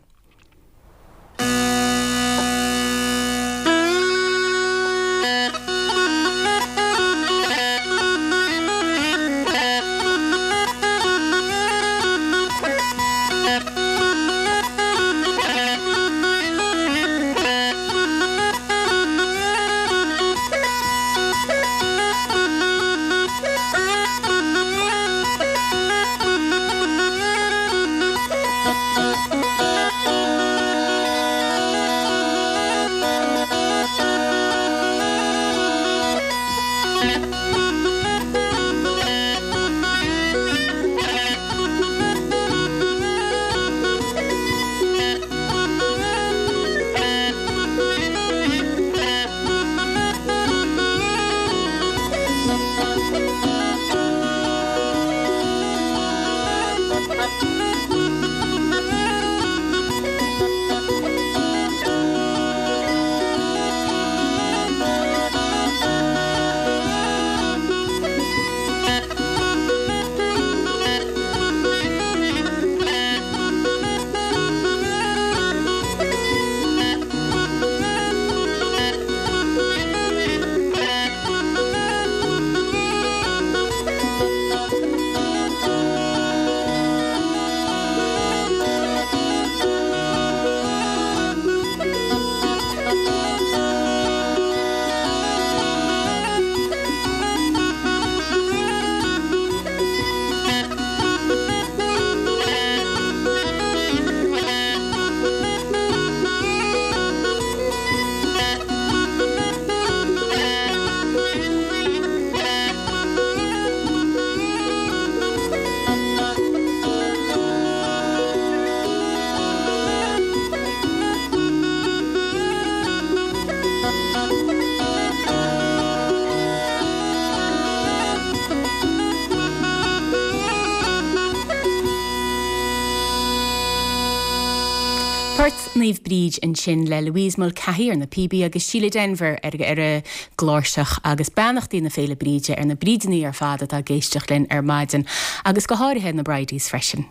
Port Naomh Bríd ansin le Louise Mulcahy ar na píobaí agus Síle Denvir ar ar an gcláirseach agus beannachtaí na Féile Bríde ar na Brídeanna ar fad atá ag éisteacht linn ar maidin agus go háirithe na Bridies freisin.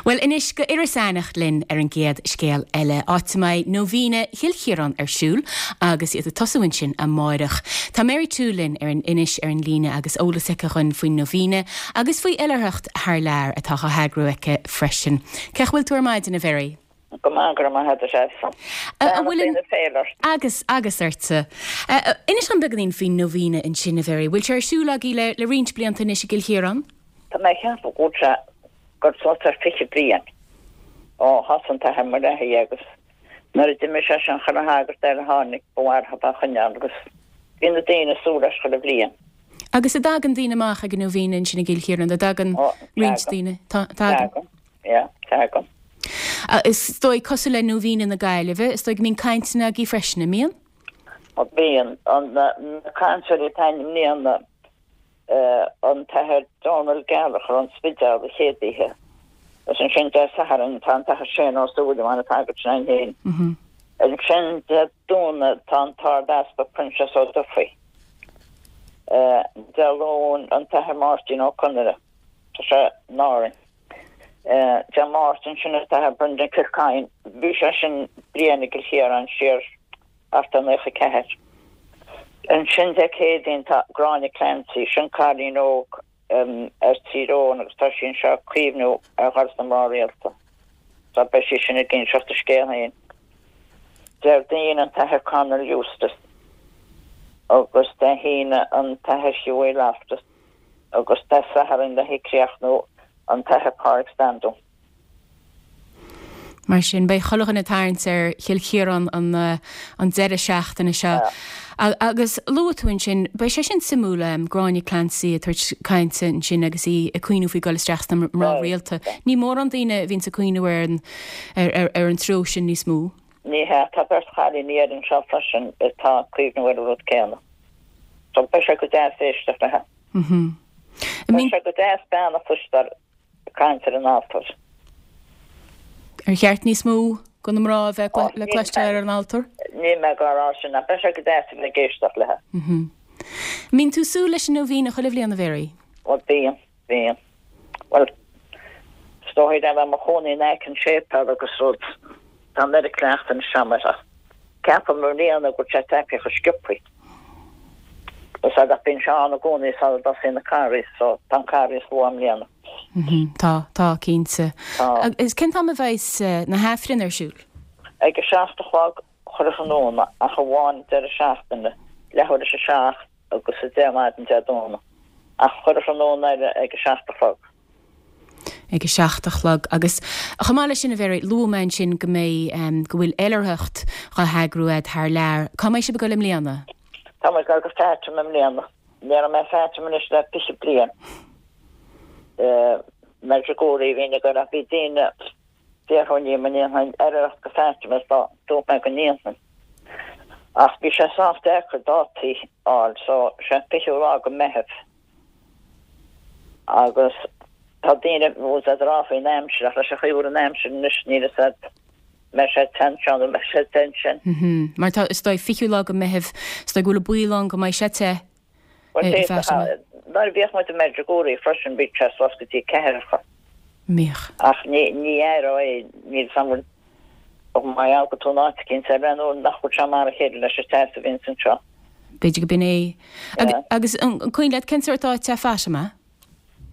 Bhuel anois go Iorras Aithneach linn ar an gcéad scéal eile, áit a mbeidh Nóibhíne Chill Chiaráin ar siúl agus iad ag tosú ansin amáireach. Tá Mary Toole linn ar an Inis ar an líne agus eolas aici dhuinn faoin Nóibhíne agus faoi oilithreacht thar lear atá á heagrú aici freisin. Cén chaoi a bhfuil tú ar maidin, a Mhary? Go maith, go raibh maith agat, a Threasa. An bhfuil an. Beannacht na féile ort. Agus, agus ortsa. Inis dom beagáinín faoin Nóibhíne ansin, a Mhary. Bhfuil sé ar siúl agaibh le, le roinnt blianta anois i gCill Chiaráin? Tá mé ag ceapadh go bhfuil sé gur suas ar 20 bliain ó thosaigh an tAthair Mulcahy agus nuair a d'imigh sé sin chuile shagart eile a tháinig ba mhaith leo é a choinneáil agus bhí na daoine ag súil leis chuile bhliain. Agus an dtagann daoine amach ag an Nóibhíne ansin i gCill Chiaráin, an dtagann roinnt daoine? Tagann. Tagann, yeah, tagann. Is dóigh, cosúil le Nóibhíne na Gaillimhe, is dóigh go mbíonn cainteanna agaibh freisin, an mbíonn? Bíonn. Na cainteoirí atá i mbliana, an tAthair Dónal Gallagher ón Spidéal an chéad oíche agus ansin Dé Sathairn tá an tAthair Shane Ó Súilleabháin an sagart sin againn féin. Ansin Dé Domhnaigh tá an tArd-Easpag Proinsias Ó Dufaigh. Dé Luain an tAthair Máirtín Ó Conaire, tá sé in Árainn. Dé Máirt ansin an tAthair Brendan Kilcoyne, bhí sé sin bliain i gCill Chiaráin siar thart ar 94. Ansin Dé Céadaoin tá Gráinne Clancy, sin cailín óg as Tír Eoghain agus tá sí anseo ag cuimhniú ar dhul sna mná rialta. So beidh sí sin ag inseacht a scéal féin. Déardaoin an tAthair Conall Eustace agus Dé hAoine an tAthair Hughie Loftus agus Dé Sathairn le críochnú an tAthair Pádraig Standún. Mar sin, beidh chuile dhuine ag tarraingt ar Chill Chiaráin an deireadh seachtaine seo. Agus luaigh tú ansin, beidh sé sin suimiúil, Gráinne Clancy ag tabhairt cainte ansin agus í ag cuimhniú faoi dhul isteach sna mná rialta. Ní mórán daoine a bhíonns ag cuimhniú ar an ar an treo sin níos mó. Ní hea, tá beirt chailíní eile anseo freisin atá ag cuimhniú ar an rud céanna. So beidh sé go deas éisteacht léi. Beidh sé go deas bean a chloisteáil ag caint ar an altóir. Ar cheart níos mó de na mná a bheith le cloisteáil ar an altóir? Níl mé ag rá sin ach beidh sé go deas a bheith ag éisteacht léi. An mbíonn tú ag súil leis an Nóibhíne chuile bhliain, a Mhary? Bhuel, bíonn, bíonn. Bhuel, is dóigh le bheith i mo chónaí in aice an tséipéil agus rud, tá an oiread cleachtaidh anois agam air ach ceapaim i mbliana go bhfuil sé tagtha chomh sciobthaí. Is ea, ach bíonn sé ann i gcónaí sula dtosaíonn an Carghas, so tá an Carghas luath i mbliana. Tá, tá, cinnte. Tá. Agus cén t-am a bheidhs na hAifrinn ar siúl? Ag a 7 a chlog chuile thráthnóna, ach amháin deireadh seachtaine, leathuair théis a 7 agus a 10 maidin Dé Domhnaigh. Ach chuile thráthnóna eile ag a 7 a chlog. ag a 7 a chlog. Agus chomh maith leis sin, a Mhary, luaigh mé ansin go mbeidh, go bhfuil oilithreacht dhá heagrú a'd thar lear. Cá mbeidh sibh ag dul i mbliana? Tá muid ag dul go Fatima i mbliana. Ní raibh mé i Fatima anois le 20 bliain. Medjugorje a bhínn ag dul ach bhí daoine ag fiafraí dhíom an ndéanfainn oilithreacht go Fatima is dúirt mé go ndéanfainn. Ach bhí sé sách deacair dátaí a fháil so sé an 20ú lá go Meitheamh. Agus tá daoine bhfuil ag rá faoin aimsir, ach leis an chaoi a bhfuil an aimsir anois, níl fhios a'd mbeidh sé te anseo nó mbeidh sé te ansin. Mar tá, is dóigh, 20ú lá go Meitheamh, is dóigh go bhfuil an baol ann go mbeidh sé te Bhuel, i bhFatima. Nuair a bhíodh muid i Medjugorje freisin, bhíodh sé suas go dtí ceathracha. Mbíodh. Ach ní, ní aireofá é, níl fhios a'm bhfuil, mar gheall go tú in áit eicínt eile nó nach bhfuil sé mar a chéile leis an teas a bhíonns anseo. B'fhéidir go b'in é. Agus an cuimhin leat cén sórt áit é Fatima?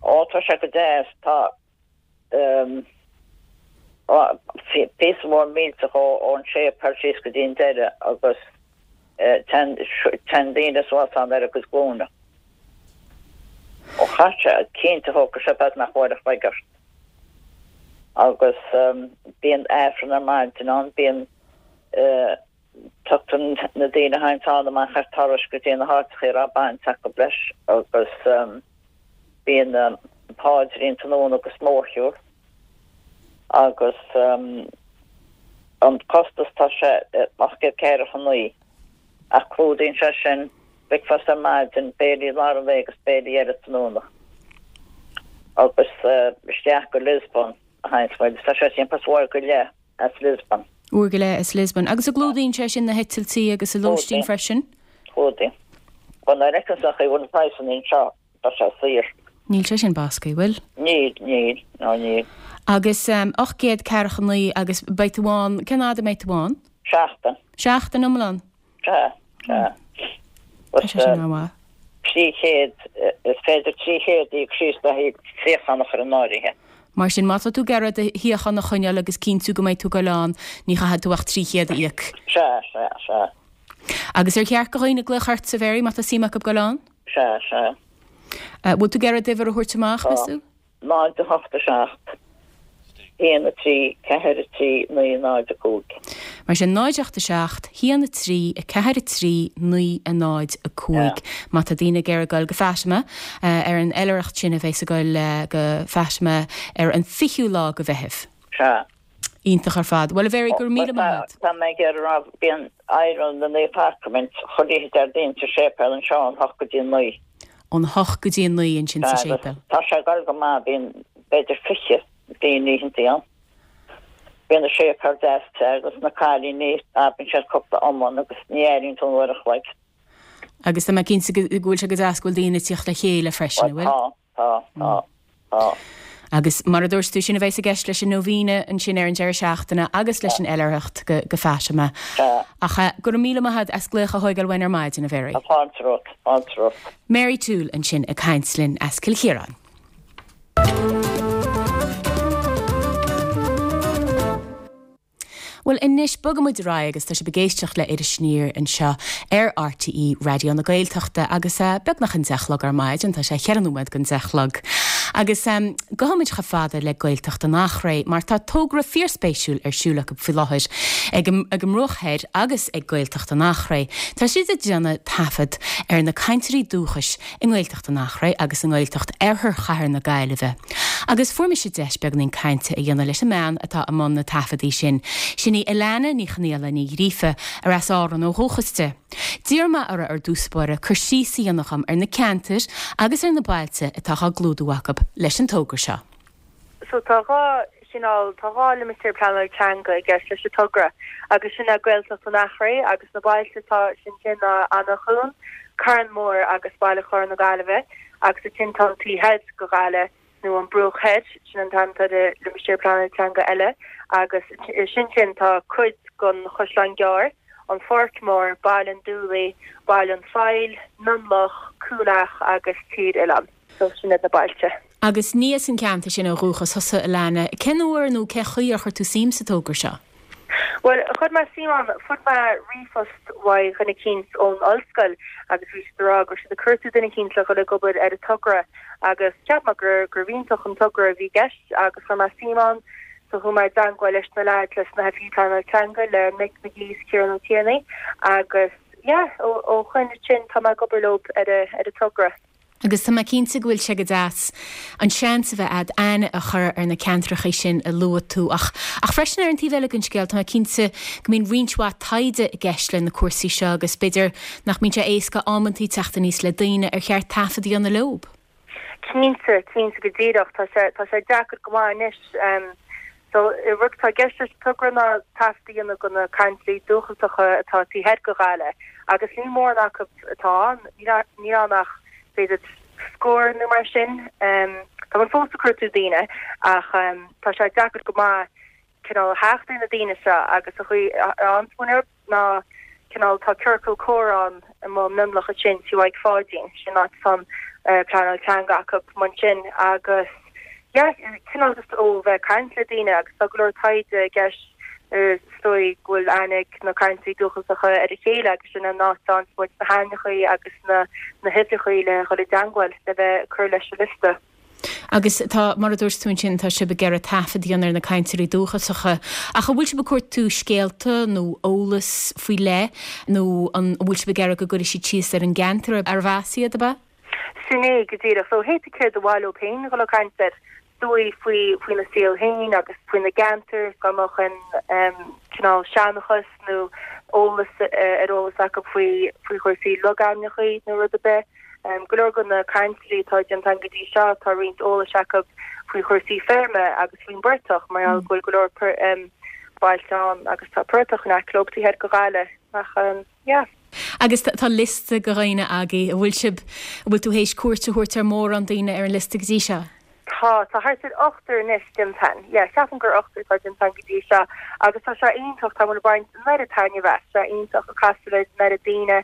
Ó, tá sé go deas. Tá píosa mór millteach ón séipéal síos go dtí an deireadh agus téann daoine suas ann ar a gcuid glúine. Ó chaith sé, cinnte thógfadh sé beagnach uair a chloig ort. Agus bíonn Aifreann ar maidin ann, bíonn Tugtar na daoine a théanns ann amach ar turais go dtí na háiteacha a raibh baint acu leis agus bíonn paidrín tráthnóna agus mórshiúl agus an costas tá sé 849 ach clúdaíonn sé sin bricfeasta ar maidin, béilí lár an lae agus béilí eile tráthnóna agus isteach go Lisbon a théanns muid. Tá sé timpeall uair go leith as Lisbon. Uair go leith as Lisbon. Agus an gclúdaíonn sé sin na heitiltí agus an lóistín freisin? Clúdaíonn. Bhuel, nuair a fheiceann tú an chaoi a bhfuil na praghsanna anseo, tá sé saor. Níl sé sin bascaí, bhfuil? Níl, níl, ná níl. Agus 849 agus beidh tú ann, cén fhad a mbeidh tú ann? Seachtain. Seachtain iomlán? Sea, sea. Tá sé sin an-mhaith. 300, is féidir 300 a íoc síos le haghaidh suíochán a chur in áirithe. Mar sin, má tá tú ag iarraidh do shuíochán a choinneáil agus cinntiú go mbeidh tú ag goil ann, ní chaithfidh tú ach 300 a íoc. Sea, sea, sea. Agus ar cheart do dhaoine glaoch ortsa, a Mhary, má tá suim acu goil ann? Sea, sea. Bhfuil tú ag iarraidh d'uimhir a thabhairt amach, meas tú? 0, 8, 7, 1, 3, 4, 3, 9, 0, 5. Mar sin, 0, 8, 7, 1, 3, 4, 3, 9, 0, 5. Má tá daoine ag iarraidh goil go Fatima ar an oilithreacht sin a bheas ag goil go Fatima ar an 20ú lá de Mheitheamh. Sea. Iontach ar fad. Bhuel, a Mhary, go raibh míle maith agat. Tá mé ag iarraidh a rá, bíonn adhradh na Naomh Sacraimint chuile oíche Déardaoin sa séipéal anseo ón hocht go dtí a naoi. Ón hocht go dtí a naoi ansin sa séipéal. Tá sé ag dul go maith, bíonn b'fhéidir 20 daoine oícheantaí ann. Bíonn an séipéal deas te agus na cailíní, abraíonn siad cúpla iomann agus ní airíonn tú an uair a chloig. Agus tá mé cinnte go bhfuil sé go deas go bhfuil daoine ag tíocht le chéile freisin, an bhfuil? Tá. Tá, tá, tá. Agus mar a dúirt tú, sin a bheas i gceist leis an Novena ansin ar an deireadh seachtaine agus leis an oilithreacht go Fatima. Sea. Ach go raibh míle maith agat as glaoch a thóigeáil uainn ar maidin, a Mhary. Tá fáilte romhat, fáilte romhat. Mary Toole ansin ag caint linn as Cill Chiaráin. Bhuel, anois, bogfaidh muid ar aghaidh agus tá sibh ag éisteacht le Iris Aniar anseo ar RTÉ Raidió na Gaeltachta agus beagnach an deich a chlog ar maidin, tá sé cheithre nóiméad don deich a chlog. Agus gabhfaidh muid chomh fada le Gaeltacht an Eachréidh mar tá togra fíorspéisiúil ar siúl acu faoi láthair ag an mBruach Thoir agus ag Gaeltacht an Eachréidh. Tá siad ag déanamh taifead ar na cainteoirí dúchais i nGaeltacht an Eachréidh agus i nGaeltacht Oirthear Chathair na Gaillimhe. Agus fuair mise deis beagainín cainte a dhéanamh leis an mbean atá i mbun na taifeadaí sin. Sin í Alana Ní Chonaola Ní Ghríofa, ar as Árann ó dhúchas di. D'iarr mé uirthi ar dtús báire cur síos a dhéanamh dhom ar na ceantair agus ar na bailte atá á gclúdú acu leis an togra seo. So tá 2 chineál, tá 2 limistéar pleanála teanga i gceist leis an togra agus sin é Gaeltacht an Eachréidh agus na bailte atá ansin ná Eanach Dhúin, Carn Mór agus Baile Chláir na Gaillimhe agus ansin tá an taobh thoir de Ghaillimh nó an Bruach Thoir, sin an t-ainm atá ar an limistéar pleanála teanga eile agus sin sin tá cuid den Chaisleán Gearr, an Pháirc Mhór, Baile an Dúlaigh, Baile an Phoill, Mionlach, Cúil Each agus Tír Oileáin. So sin iad na bailte. Agus ní as an gceantar sin ó dhúchas thusa, Alana. Cén uair nó cén chaoi ar chuir tú suim sa togra seo? Bhuel, chuir mé suim ann, fuair mé ríomhphost uaidh dhuine eicínt ón ollscoil agus bhí siad ag rá go raibh siad ag cuartú duine eicínt le dhul ag obair ar an togra agus cheap mé gur gurbh iontach an togra a bhí i gceist agus chuir mé suim ann. So chuaigh mé i dteangmháil leis na leaids, leis na hoifigigh pleanála teanga, le Mick McGee is Ciarán Ó Tiarnaigh agus yeah, ó shoin ansin tá mé ag obair leo ar an togra. Agus tá mé cinnte go bhfuil sé go deas an seans a bheith a'd aithne a chur ar na ceantrachaí sin a luaigh tú. Ach, ach freisin ar an taobh eile den scéal, tá mé cinnte go mbíonn roinnt mhaith taighde i gceist le na cúrsaí seo agus b'fhéidir nach mbíonn sé éasca amantaí teacht aníos le daoine ar cheart taifead a dhéanamh leob. Cinnte, cinnte go díreach. Tá sé, tá sé deacair go maith anois. So, rud atá i gceist leis an togra ná taifead a dhéanamh de na cainteoirí dúchasacha atá taobh thoir de Ghaillimh agus níl mórán acu atá ann, níl ann ach b'fhéidir scór nó mar sin. Tá muid fós ag cuartú daoine ach tá sé deacair go maith cineál theacht ar na daoine seo agus an chaoi a bhfaigheann muid ná cineál tá ciorcal comhrá ann i Mionlach ansin tí Mhaidhc Pháidín, sin áit atá an pleanáil teanga acu ansin agus yeah cineál just ó bheith ag caint le daoine agus tá go leor taighde i gceist is dóigh go bhfuil aithne ag na cainteoirí dúchasacha ar a chéile agus sin an áit a bhfaigheann muid na hainmneacha agus na na huimhreacha le dhul i dteangmháil le bheith ag cur leis an liosta. Agus tá, mar a dúirt tú ansin, tá sibh ag iarraidh taifead a dhéanamh ar na cainteoirí dúchasacha. Ach an bhfuil sibh ag cuartú scéalta nó eolas faoi leith nó an bhfuil sibh ag iarraidh go gcuirfidh siad síos ar an gceantar arbh as iad, ab ea? Sin é go díreach. So hé céard ba mhaith leo féin dhul ag caint air, is dóigh faoi faoina saol féin agus faoina gceantar, dá mbeadh aon cineál seanchas nó eolas ar eolas acu faoi faoi chúrsaí logainmneacha nó rud ar bith. Go leor de na cainteoirí atá déanta againn go dtí seo, tá roinnt eolais acu faoi chúrsaí feirme agus faoin bportach mar gheall go bhfuil go leor. bailte ann agus tá portach in aice leo taobh thoir de Ghaillimh ach yeah. Agus tá liosta de dhaoine agaibh, an bhfuil sibh, an bhfuil tú théis cuairt a thabhairt ar mhórán daoine ar an liosta go dtí seo? Tá, tá thart ar ochtar anois déanta a'inn. Yeah, ceapaim gur ochtar atá déanta a'inn go dtí seo agus tá sé iontach, tá muid ag baint an oiread taitneamh as, tá sé iontach ag casadh le an oiread daoine,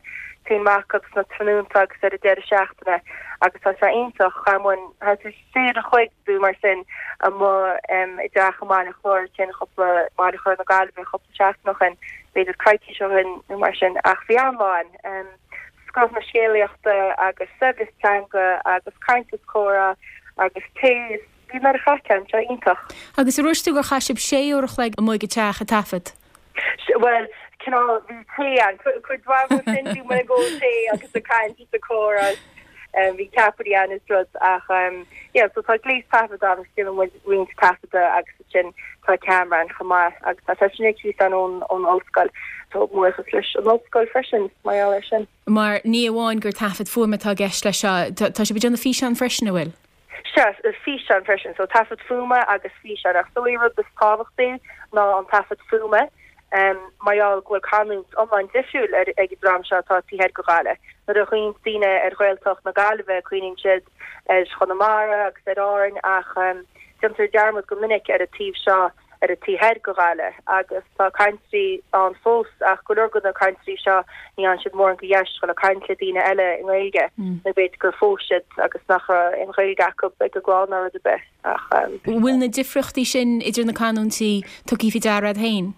téann amach acu sna tráthnónta agus ar an deireadh seachtaine agus tá sé iontach, chaith muid thart ar sé uair a chloig nó mar sin amuigh i dteach i mBaile Chláir, sin cúpla, Baile Chláir na Gaillimhe cúpla seachtain ó shin, b'fhéidir coicís ó shin nó mar sin ach bhí an-lá a'inn. scoth na scéalaíochta agus saibhreas teanga agus caint is comhrá agus tae is bhí an oiread craic ann, sé iontach. Agus ar dhúirt tú gur chaith sibh sé uair a chloig amuigh ag an teach ag taifead? Bhuel, cineál, bhí tae ann, cuid mhaith de sin bhí muid ag ól tae agus ag caint is ag comhrá is bhí ceapairí ann is rud ach yeah, so tá gléas taifeadta ann agus déanann muid roinnt taifeadta agus ansin tá ceamara ann chomh maith agus tá sé sin ar cíos a'inn ón ollscoil. So buíochas leis an ollscoil freisin mar gheall air sin. Mar ní amháin gur taifead fuaime atá i gceist leis seo, tá sibh ag déanamh físeán freisin, an bhfuil? Sea, físeán freisin. So taifead fuaime agus físeán. Ach is dóigh an rud is tábhachtaí ná an taifead fuaime mar gheall go bhfuil canúint iomlán difriúil ag an dream seo atá taobh thoir de Ghaillimh. Nuair a chuimhníonn daoine ar Ghaeltacht na Gaillimhe cuimhníonn siad ar Chonamara agus ar Árainn ach Déantar dearmad go minic ar an taobh seo, ar an taobh thoir de Ghaillimh, agus tá cainteoirí ann fós, ach go leor de na cainteoirí seo, ní fhaigheann siad mórán de dheis dhul ag caint le daoine eile i nGaeilge, nó b'fhéidir gur phós siad agus nach raibh aon Ghaeilge acu ag a gclann ná rud ar bith, ach. An bhfuil na difríochtaí sin idir na canúintí tugtha faoi deara agat féin?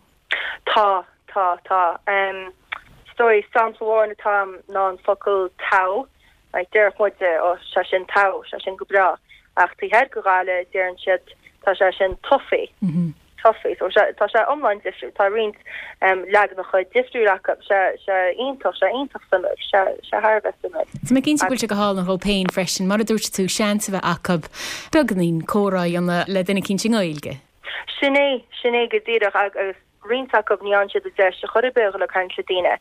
Tá, tá, tá. Is dóigh, sampla amháin atá a'm ná an focal togha. Like, déarfadh muide, ó, sé sin togha, sé sin go breá. Ach taobh thoir de Ghaillimh, deireann siad, tá sé sin toffee, toffee. So, sé, tá sé iomlán difriúil. Tá roinnt leaganacha difriúil acu. Sé, sé iontach, sé iontach suimiúil. Sé, sé thar a bheith suimiúil. Tá mé cinnte go bhfuil sé go hálainn dhóibh féin freisin, mar a dúirt tú, seans a bheith acu beagáinín comhrá a dhéanamh le duine eicínt i nGaeilge. Sin é, sin é go díreach agus roinnt acu ní fhaigheann siad an deis ar chor ar bith a dhul ag caint le daoine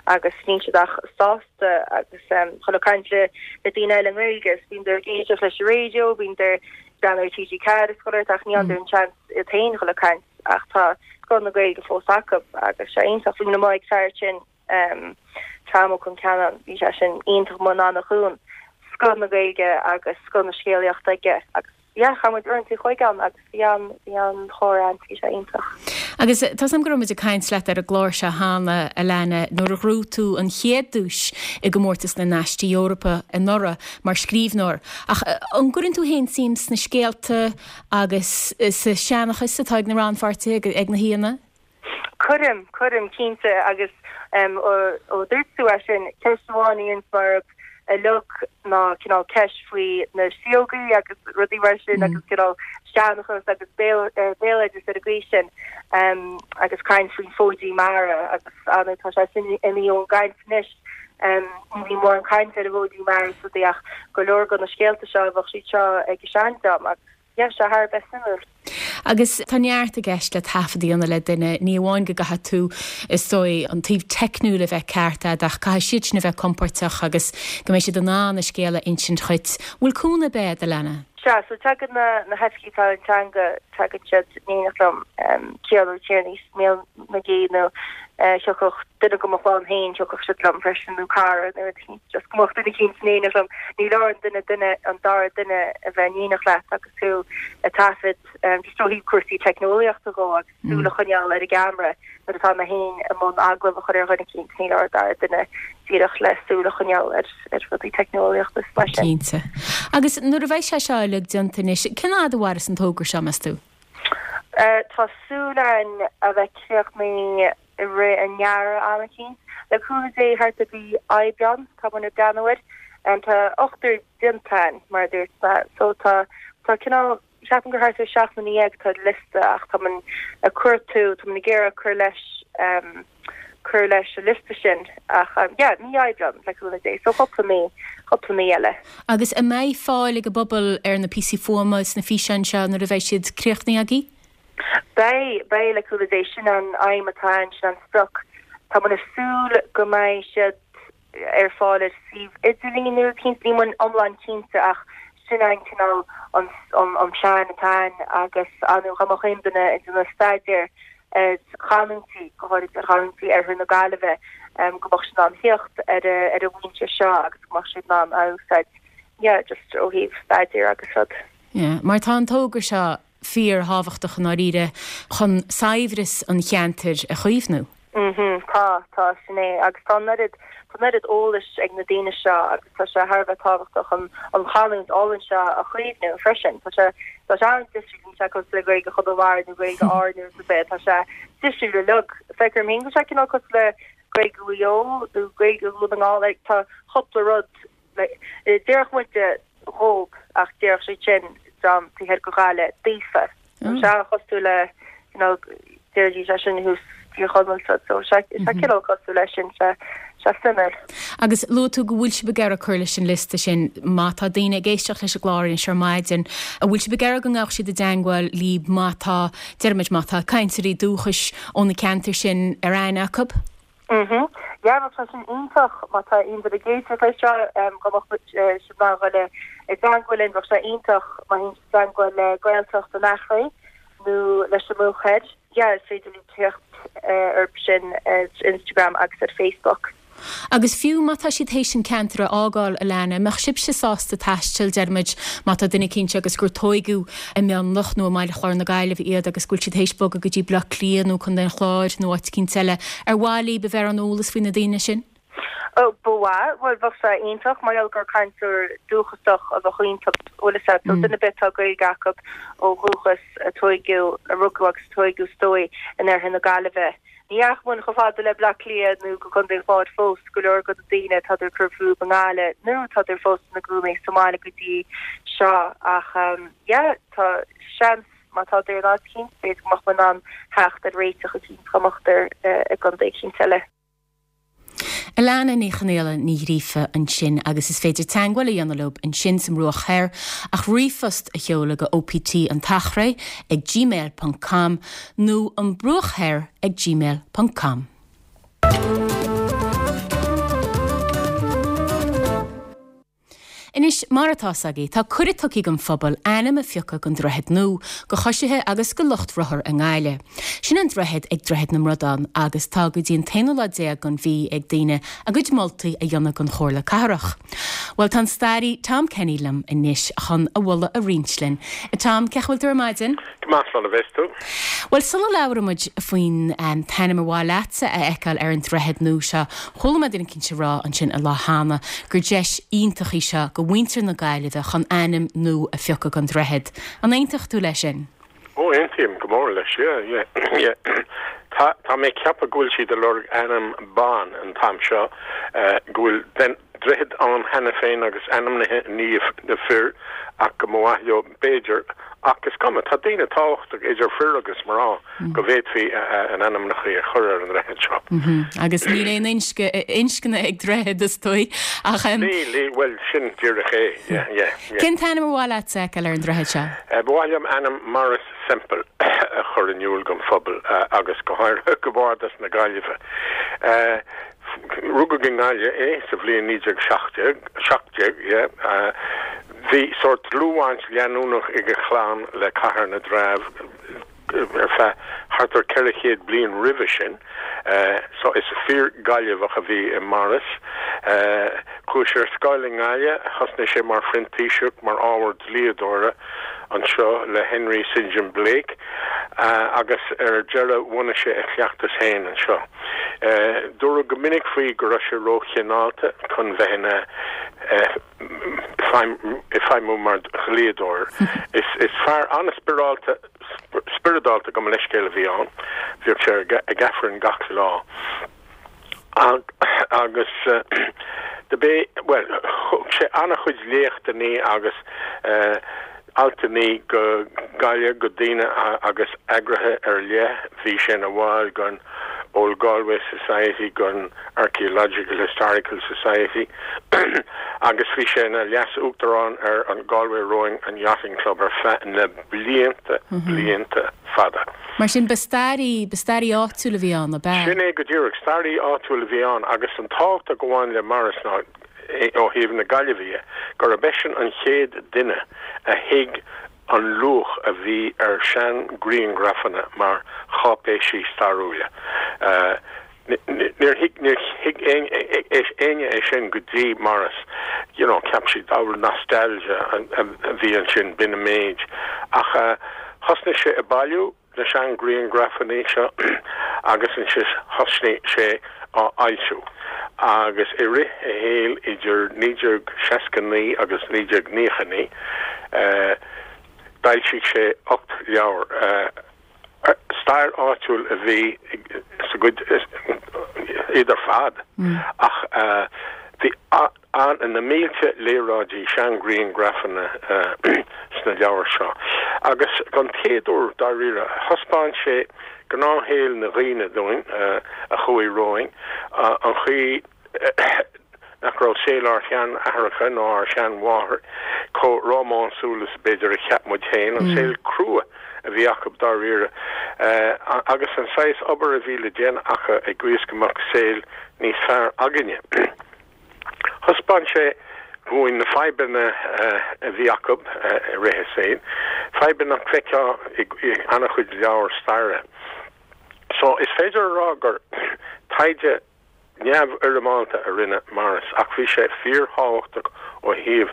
agus níl siad ach sásta agus dhul ag caint le le daoine eile i nGaeilge agus bíonn ag éisteacht leis an raidió, bíonn ag breathnú ar TG4 is chuile shórt ach ní fhaigheann an seans iad féin dhul ag caint ach tá scoth na Gaeilge fós acu agus sé iontach. Bhí muid amuigh ag fear sin Tom Ó Concheanainn, bhí sé sin iontach amuigh in Eanach Dhúin, scoth na Gaeilge agus scoth na scéalaíochta aige agus yeah, chaith muid uaireanta an chloig ann agus bhí an, bhí an-chomhrá ann, bhí sé iontach. Agus tá 's agam go raibh muid ag caint leat ar an gclár seo cheana, Alana, nuair a ghnóthaigh tú an chéad duais i gcomórtas na nAistí Eorpacha anuraidh mar scríbhneoir. Ach an gcuireann tú féin suim sna scéalta agus sa seanchas atá ag na rannpháirtithe, ag na haíonna? Cuirim, cuirim, cinnte, agus ó dúirt tú é sin, ceist amháin a dhéananns mé orthu uilig ná cineál ceist faoi na síógaí agus rudaí mar sin agus cineál seanchas agus béaloideas ar an gcaoi sin agus caint faoin bhfóidín mara agus ar ndóigh tá sé sin imithe ón gcaint anois. Ní bhíonn mórán cainte ar an bhfóidín mara is rudaí ach go leor de na scéalta seo bheadh siad seo ag an seandream agus Yeah, sé thar a bheith suimiúil. Agus tá neart i gceist le taifead a dhéanamh le duine, ní amháin go gcaithfidh tú, is dóigh, an taobh teicniúil a bheith ceart agat ach caithfidh siad sin a bheith compóirteach agus go mbeidh siad in ann a scéal a insint dhuit. Bhfuil cúnamh ar bith agat, Alana? Sea, so tagann na hoifigigh pleanála teanga, tagann siad in éineacht liom, Ciarán Ó Tiarnaigh is Mícheál McGee nó thiocfadh duine de mo chlann féin, thiocfadh siad liom freisin nó cara nó rud eicínt, just go mbeadh duine eicínt in éineacht liom. Ní leor an duine duine, an dara duine a bheith in éineacht leat agus tú ag taifead, just ó thaobh cúrsaí teicneolaíochta dhó agus súil a choinneáil ar an gceamara nuair atá mé féin i mbun agallamh a chur ar dhuine eicínt, ní leor an dara duine díreach le súil a choinneáil ar ar rudaí teicneolaíochta is mar sin. Cinnte. Agus nuair a bheidh sé seo uilig déanta anois, cén fhad a mhairfeas an togra seo, meas tú? Tá súil againn a bheith críochnaithe i rith an earraigh am eicínt. Le cúnamh Dé thart ar mhí Aibreán tá muid ag breathnú air. Tá ochtar déanta againn mar a dúirt mé so tá tá cineál ceapaim gur thart ar 17 nduine atá ar liosta ach tá muid ag cuartú tá muid ag iarraidh cur leis cur leis an liosta sin ach yeah, mí Aibreán le cúnamh Dé so cúpla mí, cúpla mí eile. Agus an mbeidh fáil ag an bpobal ar na píosaí fuaime is na físeáin seo nuair a bheidh siad críochnaithe agaibh? Beidh, beidh le cúnamh Dé, sin an aidhm atá ann, sin an sprioc. Tá muid ag súil go mbeidh siad ar fáil ar suíomh idirlín nó rud eicínt, níl muid iomlán cinnte ach sin an cineál an an plean atá ann agus ar ndóigh dá mbeadh aon duine ag déanamh staidéar. Ar chanúintí, go háirid ar chanúintí oirthear na Gaillimhe, go mbeadh siad in ann theacht ar an bhfoinse seo agus go mbeadh siad in ann a úsáid, yeah, just ó thaobh staidéir agus rud. Yeah, mar tá an togra seo fíor-thábhachtach i ndáiríre chun saibhreas an cheantair a chaomhnú. Mhm, tá, tá, sin é. Agus tá an oiread, tá an oiread eolais ag na daoine seo agus tá sé thar a bheith tábhachtach an, an chanúint álainn seo a chaomhnú freisin. Tá sé, tá sé an-difriúil, níl sé cosúil le Gaeilge Chonamara nó Gaeilge Árann nó rud ar bith, tá sé difriúil uilig. Feictear dom féin go bhfuil sé cineál cosúil le Gaeilge Mhaigh Eo nó Gaeilge Dhún na nGall, like tá cúpla rud, like, déarfadh muide dhób ach déarfadh siad sin dream taobh thoir de Ghaillimh daofa. Tá sé an-chosúil le you know déarfaidís é sin thuas Tír Chonaill so so sé sé cineál cosúil leis sin sé sé suimiúil. Agus luaigh tú go bhfuil sibh ag iarraidh cur leis an liosta sin. Má tá daoine ag éisteacht leis an gclár anois ar maidin, an bhfuil sibh ag iarraidh go ngabhadh siad i dteangmháil libh má tá, déarfaimid, má tá cainteoirí dúchais ó na ceantair sin ar aithne acu? Mhm. Yeah, bheadh sé sin iontach má tá aon duine ag éisteacht leis seo, go mbeadh siad in ann dhul i dteangmháil linn, bheadh sé iontach má théann siad i dteangmháil le Gaeltacht an Eachréidh nó leis an mBruach Thoir. Yeah, is féidir libh teacht orthu sin ar Instagram agus ar Facebook. Agus fiú má tá siad théis an ceantar a fhágáil, Alana, an mbeadh sibhse sásta taisteal, deir muid, má tá duine eicínt agus gur tóigeadh i Mionlach nó i mBaile Chláir na Gaillimhe iad agus go bhfuil siad théis bogadh go dtí Baile Átha Cliath nó Contae an Chláir nó áit eicínt eile, ar mhaith libh a bheith ar an eolas faoi na daoine sin? Ó, ba mhaith. Bhuel, bheadh sé iontach mar gheall gur cainteoir dúchasach a bheadh iontu, bhfuil fhios a't. So duine ar bith atá Gaeilge acu ó dhúchas, a tóigeadh, a rugadh agus a tóigeadh is dóigh in oirthear na Gaillimhe. Ní dheachaigh muid chomh fada le Bleá Cliath nó go Contae an Chláir fós, go leor de na daoine tádar ag cur fúthu i nGaillimh nó tádar fós ina gcónaí sa mbaile go dtí seo ach yeah tá seans má tádar in áit eicínt b'fhéidir go mbeadh muid in ann theacht ar réiteach eicínt dá mbeadar i gcontae eicínt eile. Alana Ní Chonaola Ní Ghríofa ansin agus is féidir teangmháil a dhéanamh leo ansin sa mBruach Thoir ach ríomhphost a sheoladh go OPT an tEachréidh ag gmail ponc com nó an Bruach Thoir ag gmail ponc com. Anois, mar atá 's agaibh, tá cuireadh tugtha don phobal ainm a phiocadh don droichead nua, do choisithe agus do lucht rothar i nGaillimh. Sin an droichead ag Droichead na mBradán agus tá go dtí an t-aonú lá déag den mhí ag daoine a gcuid moltaí a dhéanamh don Chomhairle Cathrach. Bhuel, tá an staraí Tom Kenny liom anois chun a mholadh a roinnt linn. A Tom, cén chaoi a bhfuil tú ar maidin? Go maith, slán a bheas tú. Bhuel, sula labhraíonn muid faoin t-ainm ar mhaith leatsa a fheiceáil ar an droichead nua seo, chuala mé duine eicínt ag rá ansin an lá cheana gur deis iontach í seo do mhuintir na Gaillimhe chun ainm nua a phiocadh don droichead. An aontódh tú leis sin? Ó, aontaím go mór leis, yeah, yeah, yeah. Tá, tá mé ag ceapadh go bhfuil siad ag lorg ainm ban an t-am seo, go bhfuil droichead ann cheana féin agus ainmnithe i ndiaidh na fir ach go mba mhaith leo, b'fhéidir, ach is cuma, tá daoine tábhachtach idir fir agus mná go bhféadfaí a n-ainmneacha a chur ar an ndroichead seo. Agus níl aon inscne ag droichead, is dóigh, ach. Níl, níl, bhuel, sin díreach é, yeah, yeah, yeah. Cén t-ainm ar mhaith leat a fheiceáil ar an droichead seo? Ba mhaith liom ainm Maurice Semple a chur in iúl don phobal agus go háirithe go Bhardas na Gaillimhe. Rugadh i nGaillimh é sa bhliain 1917, 17, yeah. Bhí sórt dlúthbhaint leanúnach ag a chlann le Cathair na dTreabh ar feadh thart ar 400 bliain roimhe sin, so is fíor-Ghaillimheach a bhí i Maurice. Chuaigh sé ar scoil i nGaillimh, thosnaigh sé mar phrintíseach mar ábhar dlíodóra anseo le Henry St John Blake agus ar deireadh bhunaigh sé a chleachtas féin anseo. Dúradh go minic faoi go raibh sé róchineálta chun bheith ina feidhmiú mar dhlíodóir. Is fear an-spioradálta, spioradálta gabh mo leithscéal a bhí ann. Bhíodh sé ag Aifreann gach lá. Agus do b'é, bhuel, thug sé an-chuid léachtannaí agus altannaí go Gaillimh go daoine agus eagraithe ar leith. Bhí sé ina bhall den Old Galway Society, den Archaeological Historical Society agus bhí sé ina leas-uachtarán ar an Galway Rowing and Yachting Club ar feadh na blianta, blianta fada. Mar sin, ba staraí, ba staraí áitiúil a bhí ann, ab ea? Sin é go díreach, staraí áitiúil a bhí ann agus an tábhacht a ghabhann le Maurice ná, ó thaobh na Gaillimhe dhe, gurb eisean an chéad duine a thuig. an luach a bhí ar sean-ghrianghrafanna mar cháipéisí stairiúla. Níor thuig níor thuig éinne é sin go dtí Maurice, you know, cheap siad ábhar nostalgia a bhí ansin, b'in an méid. Ach thosnaigh sé ag bailiú na sean-ghrianghrafanna seo agus ansin thosnaigh sé á fhoilsiú. Agus i rith a shaoil idir 1969 agus 1999 d'fhoilsigh sé 8 leabhar. Stair áitiúil a bhí sa gcuid iad ar fad ach bhí na mílte léaráidí, seanghrianghrafanna sna leabhair seo agus don chéad uair dáiríre thaispeáin sé gnáthshaol na dhaoine dúinn a chuaigh romhainn, an chaoi nach raibh saol ár sean-aithreacha ná ár sean-mháthair chomh rómánsúil is b'fhéidir a cheap muid féin, an saol crua a bhí acu dáiríre, agus an saghas obair a bhí le déanamh acu i gcaoi is go mbeadh saol níos fearr againne. Thaispeáin sé dhúinn na fadhbanna a bhí acu i rith a saoil, fadhbanna nach bhfeicfeá i an-chuid leabhar staire. So, is féidir a rá gur taighde neamhfhoirmeálta a rinne Maurice ach bhí sé fíorthábhachtach ó thaobh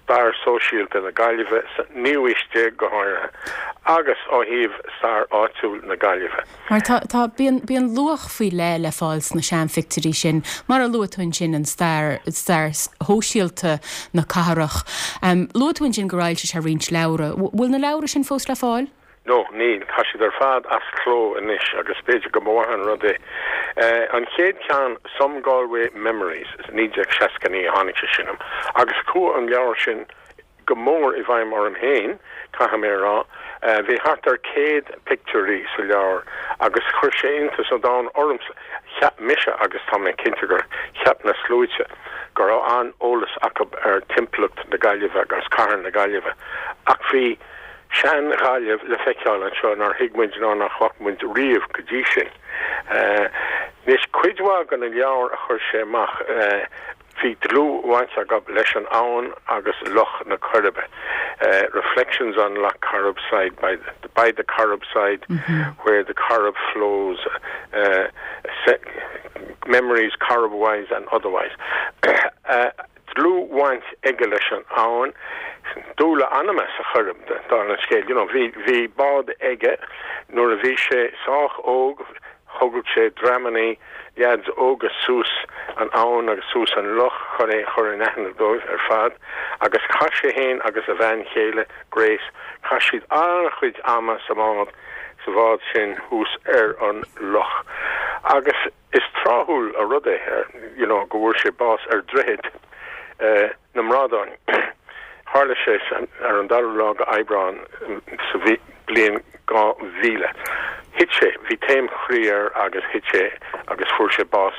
stair sóisialta na Gaillimhe sa naoú haois déag go háirithe agus ó thaobh stair áitiúil na Gaillimhe. Mar tá, tá, bíonn, bíonn luach faoi leith le fáil sna seanphictiúirí sin, mar a luaigh tú ansin, an stair, stair shóisialta na cathrach. Luaigh tú ansin gur fhoilsigh sé roinnt leabhra. Bhfuil na leabhra sin fós le fáil? No, níl. Tá siad ar fad as cló anois agus b'fhéidir go mba mhaith an rud é. An chéad cheann, Some Galway Memories, 1969 a tháinig sé sin amach agus chuaigh an leabhar sin go mór i bhfeidhm orm féin, caithfidh mé a rá. Bhí thart ar 100 pictiúirí sa leabhar agus chuir sé iontas an domhain ormsa. Cheap mise, agus tá mé cinnte gur cheap na sluaite, go raibh an-eolas acu ar timpeallacht na Gaillimhe agus cathair na Gaillimhe ach bhí sean-Ghaillimh le feiceáil anseo nár thuig muid ná nach bhfaca muid riamh go dtí sin. Anois, cuid mhaith de na leabhair a chuir sé amach, bhí dlúthbhaint acu leis an abhainn agus Loch na Coiribe, Reflections on Lough Corrib Side by the, by the Corrib Side, Where the Corrib Flows, Memories Corribwise and Otherwise. dlúthbhaint aige leis an abhainn, dúil a anama sa Choirib, dála an scéil. You know, bhí, bhí bád aige nuair a bhí sé sách óg, thugadh sé dreamannaí leaids óga suas an abhainn agus suas an loch chun é a chur in aithne dóibh ar fad agus chaith sé fhéin agus a bhean chéile, Grace, chaith siad an-chuid ama sa mbád, sa bhád sin thuas ar an loch agus. Is tráthúil an rud é you know go bhfuair sé bás ar Dhroichead na mBrádán. Tharla sé ar an dara lá de Aibreán sa bhliain 2000. Thit sé, bhí taom chroí air agus thit sé agus fuair sé bás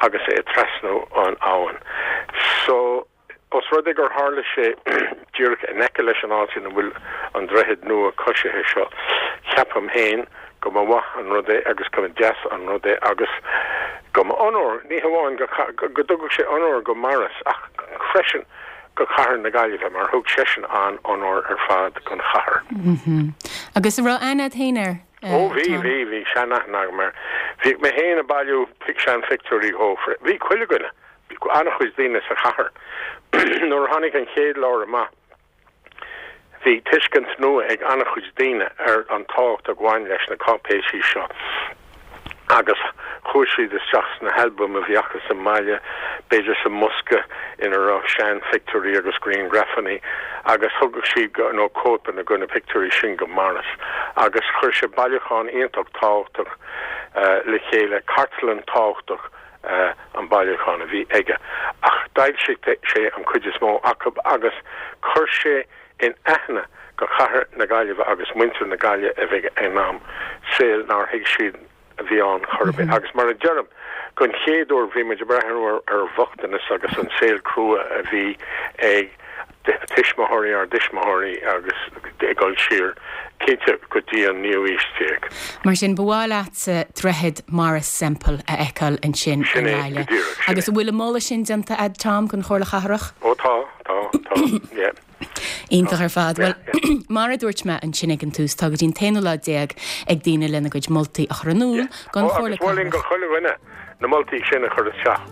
agus é ag trasnú an abhainn. So. Os rud é gur tharla sé díreach in aice leis an áit ina bhfuil an droichead nua coisithe seo, ceapaim féin go mba mhaith an rud é agus go mba deas an rud é agus go mba onóir, ní hamháin go go dtugadh sé onóir go Maurice ach freisin go cathair na Gaillimhe mar thug seisean an-onóir ar fad don chathair. Agus an raibh aithne agat féin air, Ó bhí, bhí, bhí sean-aithne agam air. Bhíodh mé féin ag bailiú seanphictiúirí dhó. Bhí chuile dhuine. Bhí an-chuid daoine sa chathair. Nuair a tháinig an chéad leabhar amach, bhí tuiscint nua ag an-chuid daoine ar an tábhacht a bhain leis na cáipéisí seo agus chuaigh siad isteach sna halbaim a bhí acu sa mbaile, b'fhéidir sa mbosca ina raibh seanphictiúirí agus grianghrafanna agus thugadh siad nó cóipeanna de na pictiúirí sin go Maurice agus chuir sé bailiúchán iontach tábhachtach le chéile, cartlann tábhachtach. an bailiúchán a bhí aige, ach d'fhoilsigh sé an chuid is mó acu agus chuir sé in aithne go chathair na Gaillimhe agus muintir na Gaillimhe a bhí ag an am, saol nár thuig siad a bhí ann chor ar bith. Agus mar a deirim, don chéad uair bhí muid ag breathnú ar bhochtanas agus an saol crua a bhí ag tuismitheoirí ár dtuismitheoirí agus ag dul siar, cinnte, go dtí an naoú haois déag. Mar sin, ba mhaith leatsa Droichead Maurice Semple a fheiceáil ansin i Sin é, go nGaillimh. díreach, sin Agus é. an bhfuil an moladh sin déanta a'd, Tom, don Chomhairle Chathrach? Ó tá, tá, tá, yeah. Iontach ar fad. Bhuel, mar a dúirt mé ansin ag an tús, tá go dtí an t-aonú lá déag ag daoine lena gcuid moltaí a chur in iúl don Chomhairle Cathrach. Agus mholfainn do chuile dhuine na moltaí sin a chur isteach.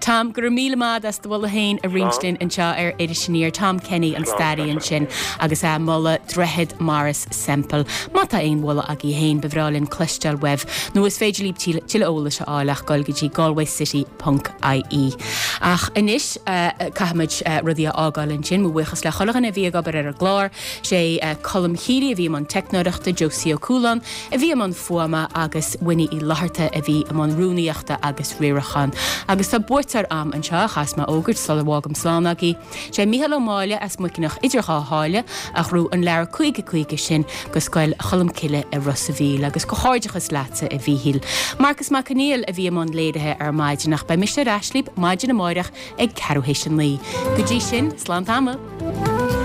Tom, go raibh míle maith agat as do mholadh féin a roinnt linn anseo ar Iris Aniar. Tom Kenny, an staraí ansin, agus é ag moladh Droichead Maurice Semple. Má tá aon mholadh agaibh féin, ba bhreá linn cloisteáil uaibh, nó is féidir libh tuilleadh eolais a fháil ach dul go dtí galwaycity ponc ie. Ach anois, caithfimid rudaí a fhágáil ansin. Mo bhuíochas le chuile dhuine a bhí ag obair ar an gclár. Sé Colm Healy a bhí i mbun teicneoireachta, Josie Ó Cualáin a bhí i mbun fuaime agus Winnie Uí Fhlatharta a bhí i mbun rúnaíochta agus riaracháin. Agus tá buaiteoir a'm anseo a chaithfeas mé a fhógairt sula bhfágaim slán agaibh. Sé Mícheál Ó Máille as Muiceanach idir dhá sháile a ghnóthaigh an leabhar 50 50 sin go Scoil Cholmcille i Ros a' Mhíl agus comhghairdeachas leatsa a Mhíchíl. Marcas Mac Conghail a bhí i mbun léirithe ar maidin ach beidh mise ar ais libh maidin amáireach ag ceathrú théis a 9. Go dtí sin, slán tamall!